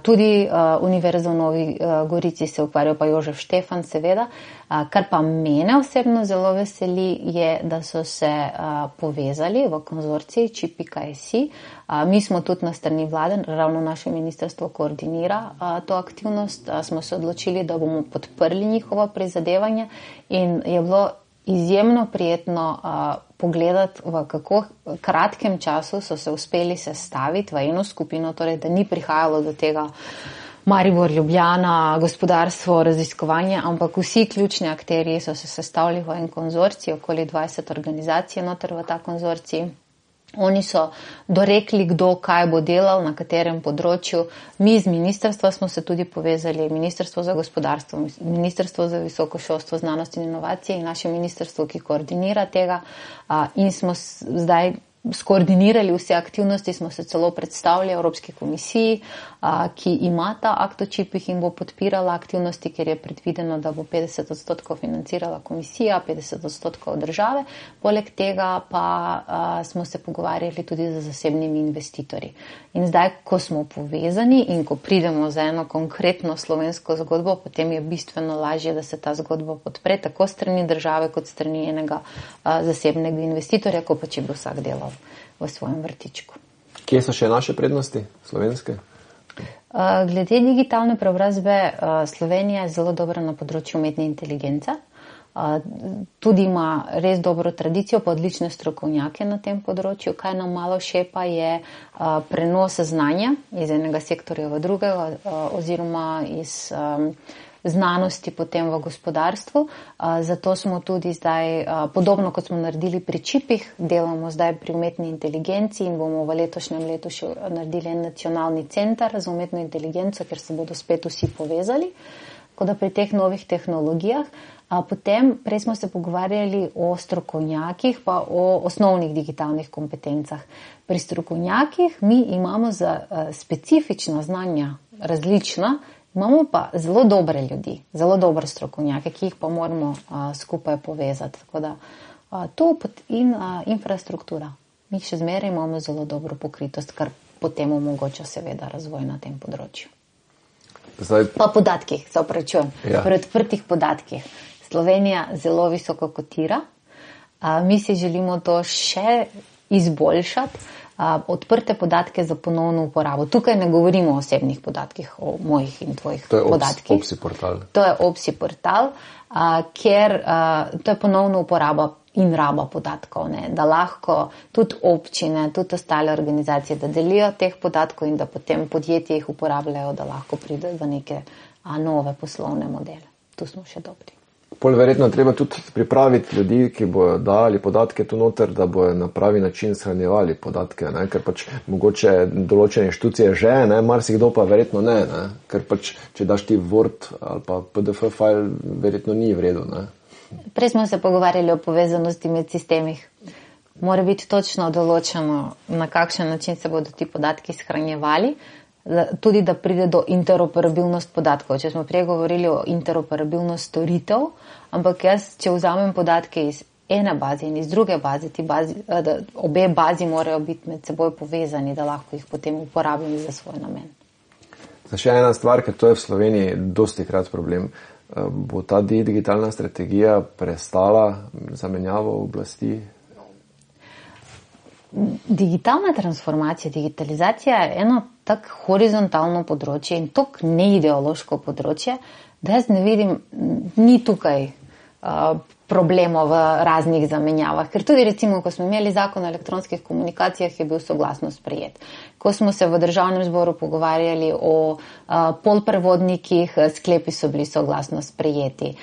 Speaker 2: Tudi Univerza v Novi Gorici se ukvarja, pa Jožef Štefan seveda. Kar pa mene osebno zelo veseli je, da so se povezali v konzorciji Čip.si. Mi smo tudi na strani vlade, ravno naše ministrstvo koordinira to aktivnost. Smo se odločili, da bomo podprli njihova prizadevanja in je bilo izjemno prijetno pogledati, v kako kratkem času so se uspeli sestaviti v eno skupino, torej da ni prihajalo do tega Maribor, Ljubljana, gospodarstvo, raziskovanje, ampak vsi ključni akterji so se sestavili v en konzorcij, okoli 20 organizacij noter v ta konzorcij. Oni so dorekli, kdo kaj bo delal, na katerem področju. Mi z ministrstva smo se tudi povezali, Ministrstvo za gospodarstvo, Ministrstvo za visoko šolstvo, znanost in inovacije in naše ministrstvo, ki koordinira tega. In smo zdaj skoordinirali vse aktivnosti, smo se celo predstavili Evropski komisiji, ki ima ta akt o čipih in bo podpirala aktivnosti, ker je predvideno, da bo 50% financirala komisija, 50% države. Poleg tega pa smo se pogovarjali tudi z zasebnimi investitorji. In zdaj, ko smo povezani in ko pridemo za eno konkretno slovensko zgodbo, potem je bistveno lažje, da se ta zgodba podpre tako strani države kot strani enega zasebnega investitorja, ko pa če bi vsak delal v svojem vrtičku.
Speaker 1: Kje so še naše prednosti slovenske?
Speaker 2: Glede digitalne preobrazbe, Slovenija je zelo dobra na področju umetne inteligence. Tudi ima res dobro tradicijo, pa odlične strokovnjake na tem področju. Kaj nam malo šepa je prenos znanja iz enega sektorja v drugega oziroma iz znanosti potem v gospodarstvu. Zato smo tudi zdaj, podobno kot smo naredili pri čipih, delamo zdaj pri umetni inteligenci in bomo v letošnjem letu še naredili en nacionalni center za umetno inteligenco, ker se bodo spet vsi povezali, kot da pri teh novih tehnologijah. Potem, prej smo se pogovarjali o strokovnjakih, pa o osnovnih digitalnih kompetencah. Pri strokovnjakih mi imamo za specifična znanja različna, imamo pa zelo dobre ljudi, zelo dobre strokovnjake, ki jih pa moramo skupaj povezati. Tako da to in infrastruktura. Mi še zmeraj imamo zelo dobro pokritost, kar potem omogoča seveda razvoj na tem področju.
Speaker 1: Zdaj...
Speaker 2: Pa podatkih, se opravičujem.
Speaker 1: Ja.
Speaker 2: Pri odprtih podatkih. Slovenija zelo visoko kotira. Mi si želimo to še izboljšati. Odprte podatke za ponovno uporabo. Tukaj ne govorimo o osebnih podatkih, o mojih in tvojih podatkih.
Speaker 1: To je OPSI portal.
Speaker 2: To je OPSI portal, ker to je ponovno uporaba in raba podatkov, ne? Da lahko tudi občine, tudi ostale organizacije, da delijo teh podatkov in da potem podjetje jih uporabljajo, da lahko pride do neke nove poslovne modele. Tu smo še dobri.
Speaker 1: Pol verjetno treba tudi pripraviti ljudi, ki bojo dali podatke tu noter, da bojo na pravi način shranjevali podatke, ne? Ker pač mogoče določene inštitucije že, ne? Marsikdo pa verjetno ne? Ker pač, če daš ti Word ali pa PDF file, verjetno ni v redu, ne?
Speaker 2: Prej smo se pogovarjali o povezanosti med sistemih. Mora biti točno določeno, na kakšen način se bodo ti podatki shranjevali, tudi da pride do interoperabilnost podatkov. Če smo prej govorili o interoperabilnost storitev, ampak jaz, če vzamem podatke iz ene baze in iz druge baze, obe bazi morajo biti med seboj povezani, da lahko jih potem uporabim za svoj namen.
Speaker 1: Še ena stvar, ker to je v Sloveniji dosti krat problem. Bo ta digitalna strategija prestala zamenjavo oblasti?
Speaker 2: Digitalna transformacija, digitalizacija je eno tak horizontalno področje in tako neideološko področje, da jaz ne vidim, ni tukaj problemov v raznih zamenjavah. Ker tudi recimo, ko smo imeli zakon o elektronskih komunikacijah, je bil soglasno sprejet. Ko smo se v državnem zboru pogovarjali o polprevodnikih, sklepi so bili soglasno sprejeti.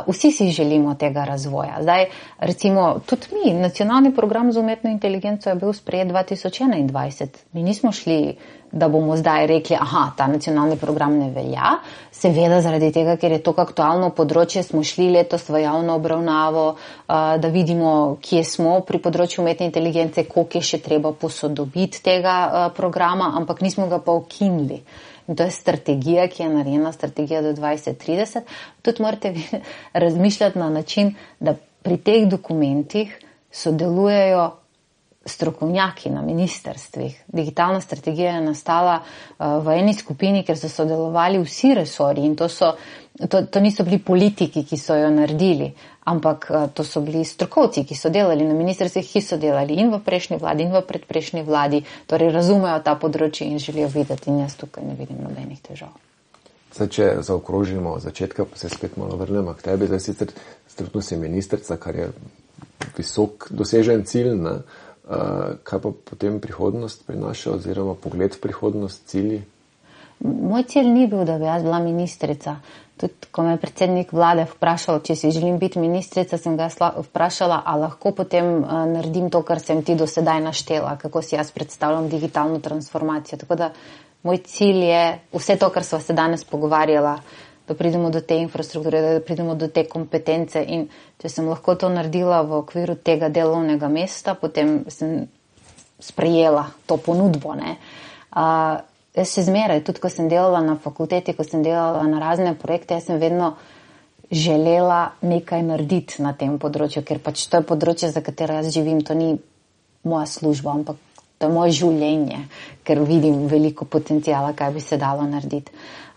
Speaker 2: Vsi si želimo tega razvoja. Zdaj, recimo, tudi mi, nacionalni program za umetno inteligenco je bil sprejet 2021. Mi nismo šli, da bomo zdaj rekli, ta nacionalni program ne velja. Seveda zaradi tega, ker je to aktualno področje, smo šli letos v javno obravnavo, da vidimo, kje smo pri področju umetne inteligence, koliko je še treba posodobiti tega programa, ampak nismo ga pa ukinili. In to je strategija, ki je narejena, strategija do 2030. Tudi morate razmišljati na način, da pri teh dokumentih sodelujejo strokovnjaki na ministerstvih. Digitalna strategija je nastala v eni skupini, ker so sodelovali vsi resorji in to niso bili politiki, ki so jo naredili, ampak to so bili strokovci, ki so delali na ministrstvih, ki so delali in v prejšnji vladi in v predprejšnji vladi, torej razumejo ta področje in želijo videti in jaz tukaj ne vidim nobenih težav.
Speaker 1: Zdaj, če zaokrožimo od začetka, pa se spet malo vrnemo k tebi, zdaj sicer trenutno si ministrica, kar je visok dosežen cilj, ne? Kaj pa potem prihodnost prinaša oziroma pogled v prihodnost, cilji?
Speaker 2: Moj cilj ni bil, da bi jaz bila ministrica. Tudi, ko me je predsednik vlade vprašal, če si želim biti ministrica, sem ga vprašala, a lahko potem naredim to, kar sem ti do sedaj naštela, kako si jaz predstavljam digitalno transformacijo. Tako da moj cilj je vse to, kar sva se danes pogovarjala, da pridemo do te infrastrukture, da pridemo do te kompetence in če sem lahko to naredila v okviru tega delovnega mesta, potem sem sprejela to ponudbo. Jaz še zmeraj, tudi ko sem delala na fakulteti, ko sem delala na razne projekte, jaz sem vedno želela nekaj narediti na tem področju, ker pač to je področje, za katero jaz živim, to ni moja služba, ampak to je moje življenje, ker vidim veliko potencijala, kaj bi se dalo narediti.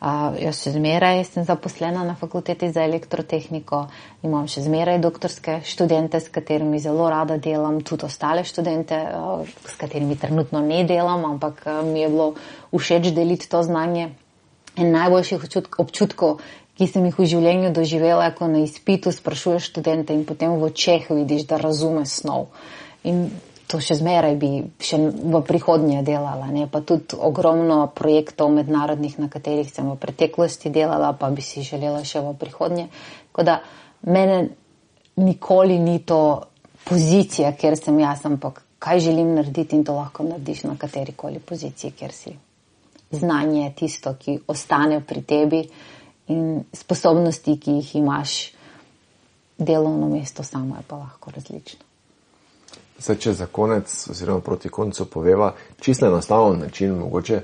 Speaker 2: Jaz še zmeraj sem zaposlena na fakulteti za elektrotehniko, imam še zmeraj doktorske študente, s katerimi zelo rada delam, tudi ostale študente, s katerimi trenutno ne delam, ampak mi je bilo všeč deliti to znanje. En najboljših občutkov, ki sem jih v življenju doživela, ko na izpitu sprašuješ študente in potem v očeh vidiš, da razume snov. In to še zmeraj bi še v prihodnje delala, ne? Pa tudi ogromno projektov mednarodnih, na katerih sem v preteklosti delala, pa bi si želela še v prihodnje. Tako da mene nikoli ni to pozicija, kjer sem jaz, ampak kaj želim narediti in to lahko narediš na katerikoli poziciji, kjer si. Znanje je tisto, ki ostane pri tebi in sposobnosti, ki jih imaš, delovno mesto samo je pa lahko različno.
Speaker 1: Zdaj, če za konec oziroma proti koncu poveva, čisto enostaven način mogoče,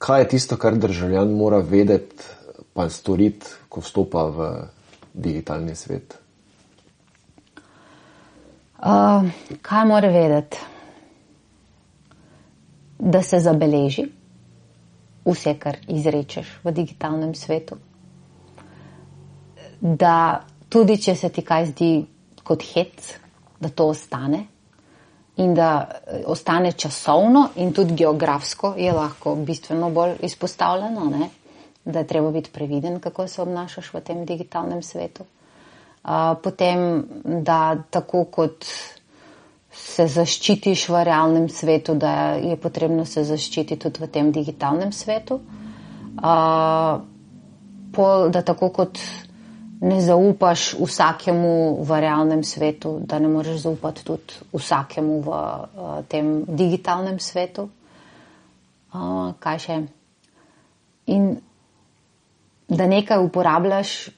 Speaker 1: kaj je tisto, kar državljan mora vedeti pa storiti, ko vstopa v digitalni svet?
Speaker 2: Kaj mora vedeti? Da se zabeleži vse, kar izrečeš v digitalnem svetu. Da tudi, če se ti kaj zdi kot hec, da to ostane in da ostane časovno in tudi geografsko je lahko bistveno bolj izpostavljeno, ne? Da je treba biti previden, kako se obnašaš v tem digitalnem svetu. Potem, da tako kot se zaščitiš v realnem svetu, da je potrebno se zaščititi tudi v tem digitalnem svetu. Da tako kot ne zaupaš vsakemu v realnem svetu, da ne moreš zaupati tudi vsakemu v tem digitalnem svetu. Kaj še? In da nekaj uporabljaš,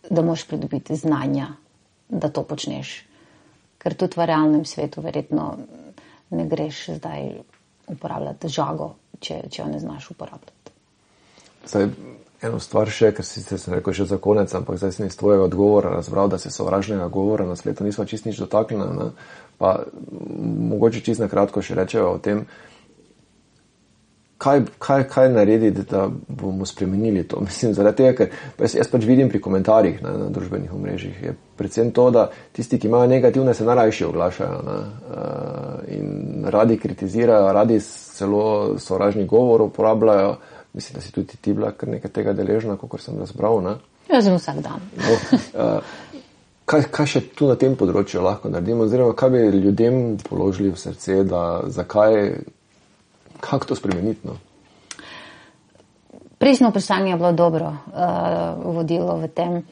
Speaker 2: da moraš pridobiti znanja, da to počneš. Ker tudi v realnem svetu verjetno ne greš zdaj uporabljati žago, če jo ne znaš uporabljati.
Speaker 1: Zdaj, eno stvar še, ker sem rekel še za konec, ampak zdaj sem iz tvojega odgovora razbral, da se sovražnega govora na spletu nismo čist nič dotaknili, ne? Pa mogoče čist na kratko še rečeva o tem, kaj narediti, da bomo spremenili to. Mislim, zaradi tega, ker jaz pač vidim pri komentarjih na družbenih omrežjih, je predvsem to, da tisti, ki imajo negativne, se najrajši oglašajo, ne? In radi kritizirajo, radi celo sovražni govor uporabljajo. Mislim, da si tudi ti bila kar nekaj tega deležna, kakor sem razbral, ne?
Speaker 2: Jaz sem vsak dan.
Speaker 1: Kaj še tu na tem področju lahko naredimo, oziroma kaj bi ljudem položili v srce, kako to spremeniti? No?
Speaker 2: Prejšnjo vprašanje je bilo dobro vodilo v tem.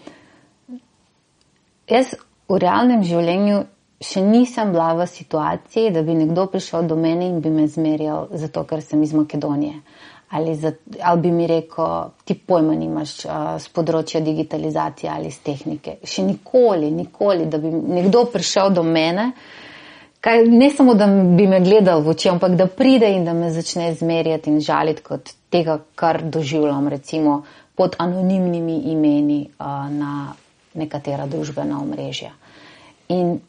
Speaker 2: Jaz v realnem življenju še nisem bila v situaciji, da bi nekdo prišel do mene in bi me zmerjal zato, ker sem iz Makedonije. Ali bi mi rekel, ti pojma nimaš z področja digitalizacije ali z tehnike. Še nikoli, da bi nekdo prišel do mene, ne samo, da bi me gledal v oči, ampak da pride in da me začne zmerjati in žaliti kot tega, kar doživljam, recimo pod anonimnimi imeni na nekatera družbena omrežja. In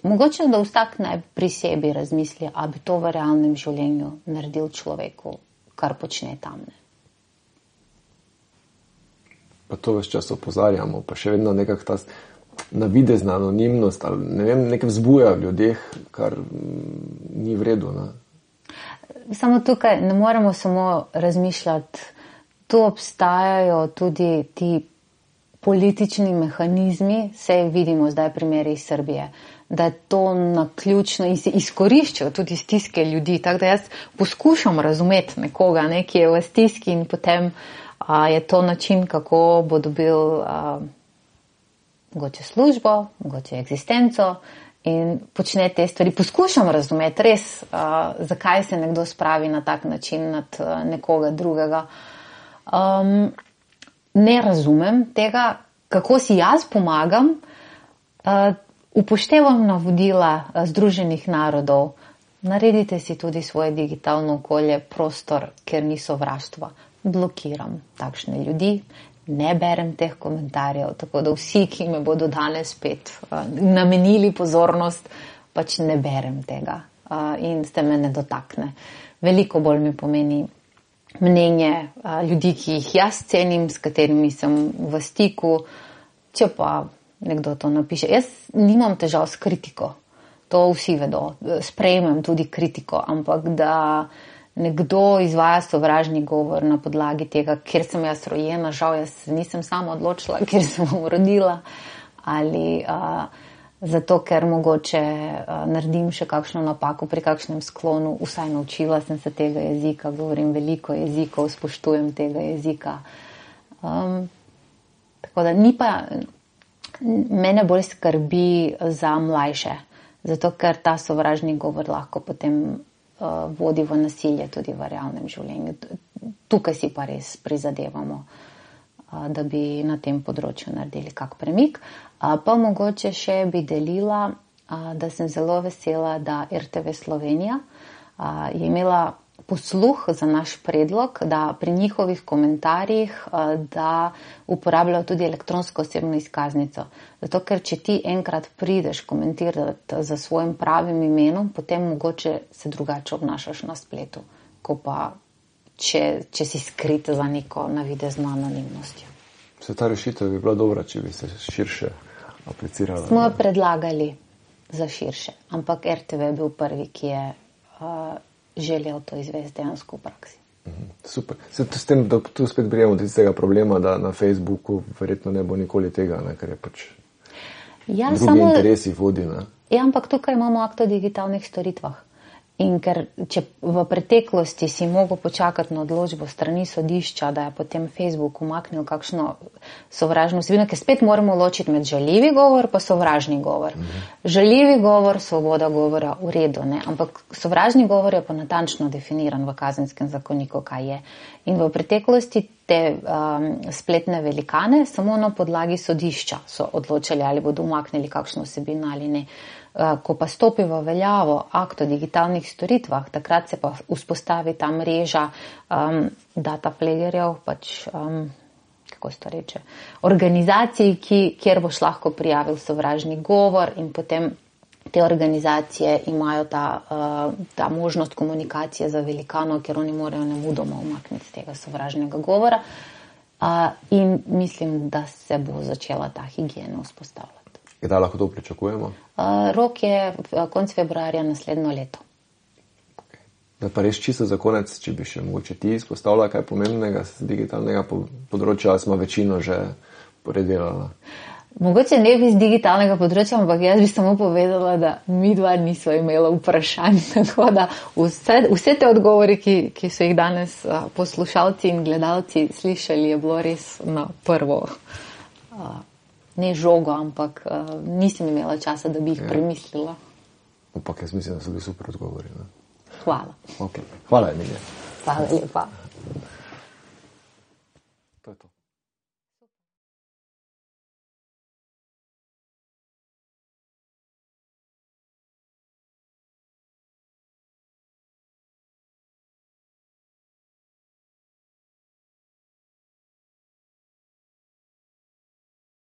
Speaker 2: mogoče, da vsak naj pri sebi razmisli, a bi to v realnem življenju naredil človeku, kar počne tam. Ne.
Speaker 1: Pa to ves čas opozarjamo, pa še vedno nekak ta navidezna anonimnost, ali ne vem, nekaj vzbuja v ljudeh, kar ni v redu. Ne.
Speaker 2: Samo tukaj ne moremo samo razmišljati, tu obstajajo tudi ti politični mehanizmi, saj vidimo zdaj primere iz Srbije, da je to naključno in se izkoriščajo tudi stiske ljudi. Tako da jaz poskušam razumeti nekoga, ki je v stiski in potem je to način, kako bo dobil mogoče službo, mogoče eksistenco in počne te stvari. Poskušam razumeti res, zakaj se nekdo spravi na tak način nad nekoga drugega. Ne razumem tega, kako si jaz pomagam. Upoštevam navodila Združenih narodov, naredite si tudi svoje digitalno okolje, prostor, kjer ni sovraštva. Blokiram takšne ljudi, ne berem teh komentarjev, tako da vsi, ki me bodo danes spet namenili pozornost, pač ne berem tega in se me ne dotakne. Veliko bolj mi pomeni mnenje ljudi, ki jih jaz cenim, s katerimi sem v stiku, če pa nekdo to napiše. Jaz nimam težav s kritiko, to vsi vedo, sprejmem tudi kritiko, ampak da nekdo izvaja sovražni govor na podlagi tega, kjer sem jaz rojena, žal jaz nisem sama odločila, kjer sem rodila, ali zato, ker mogoče naredim še kakšno napako pri kakšnem sklonu, vsaj naučila sem se tega jezika, govorim veliko jezikov, spoštujem tega jezika. Tako da ni pa... Mene bolj skrbi za mlajše, zato ker ta sovražni govor lahko potem vodi v nasilje tudi v realnem življenju. Tukaj si pa res prizadevamo, da bi na tem področju naredili kak premik. Pa mogoče še bi delila, da sem zelo vesela, da RTV Slovenija je imela posluh za naš predlog, da pri njihovih komentarjih, da uporabljajo tudi elektronsko osebno izkaznico. Zato, ker če ti enkrat prideš komentirati za svojim pravim imenom, potem mogoče se drugače obnašaš na spletu, ko pa če si skrit za neko navidezno anonimnostjo.
Speaker 1: Se ta rešitev bi bila dobra, če bi se širše aplicirala?
Speaker 2: Smo jo predlagali za širše, ampak RTV je bil prvi, ki je želel to izvesti dejansko v praksi.
Speaker 1: Super. S tem, da tu spet prijemo do tistega problema, da na Facebooku verjetno ne bo nikoli tega, ker je pač drugi interesi vodi.
Speaker 2: Ja, ampak tukaj imamo akt o digitalnih storitvah. In ker če v preteklosti si mogel počakati na odločbo strani sodišča, da je potem Facebook umaknil kakšno sovražno vsebino, ker spet moramo ločiti med žaljivi govor pa sovražni govor. Žaljivi govor, svoboda govora, v redu, ne? Ampak sovražni govor je pa natančno definiran v Kazenskem zakoniku, kaj je. In v preteklosti te spletne velikane samo na podlagi sodišča so odločali, ali bodo umaknili kakšno vsebino ali ne. Ko pa stopi v veljavo akt o digitalnih storitvah, takrat se pa vzpostavi ta mreža data flagerjev, pač, kako se to reče, organizacij, kjer boš lahko prijavil sovražni govor in potem te organizacije imajo ta možnost komunikacije za velikano, ker oni morajo nemudoma umakniti tega sovražnega govora in mislim, da se bo začela ta higiena vzpostavljati.
Speaker 1: Kdaj lahko to pričakujemo?
Speaker 2: Rok je konec februarja naslednjo leto.
Speaker 1: Okay. Da pa res čisto za konec, če bi še mogoče ti izpostavila kaj pomembnega z digitalnega področja, ali smo večino že predelala?
Speaker 2: Mogoče ne bi z digitalnega področja, ampak jaz bi samo povedala, da mi dva nismo imela vprašanj, tako da vse te odgovori, ki so jih danes poslušalci in gledalci slišali, je bilo res na prvo, ne žogo, ampak nisem imela časa, da bi jih premislila.
Speaker 1: Ampak jaz mislim, da so bili super odgovori. Ne?
Speaker 2: Hvala.
Speaker 1: Okay. Hvala, Emilija.
Speaker 2: Hvala lepa.
Speaker 1: To je to.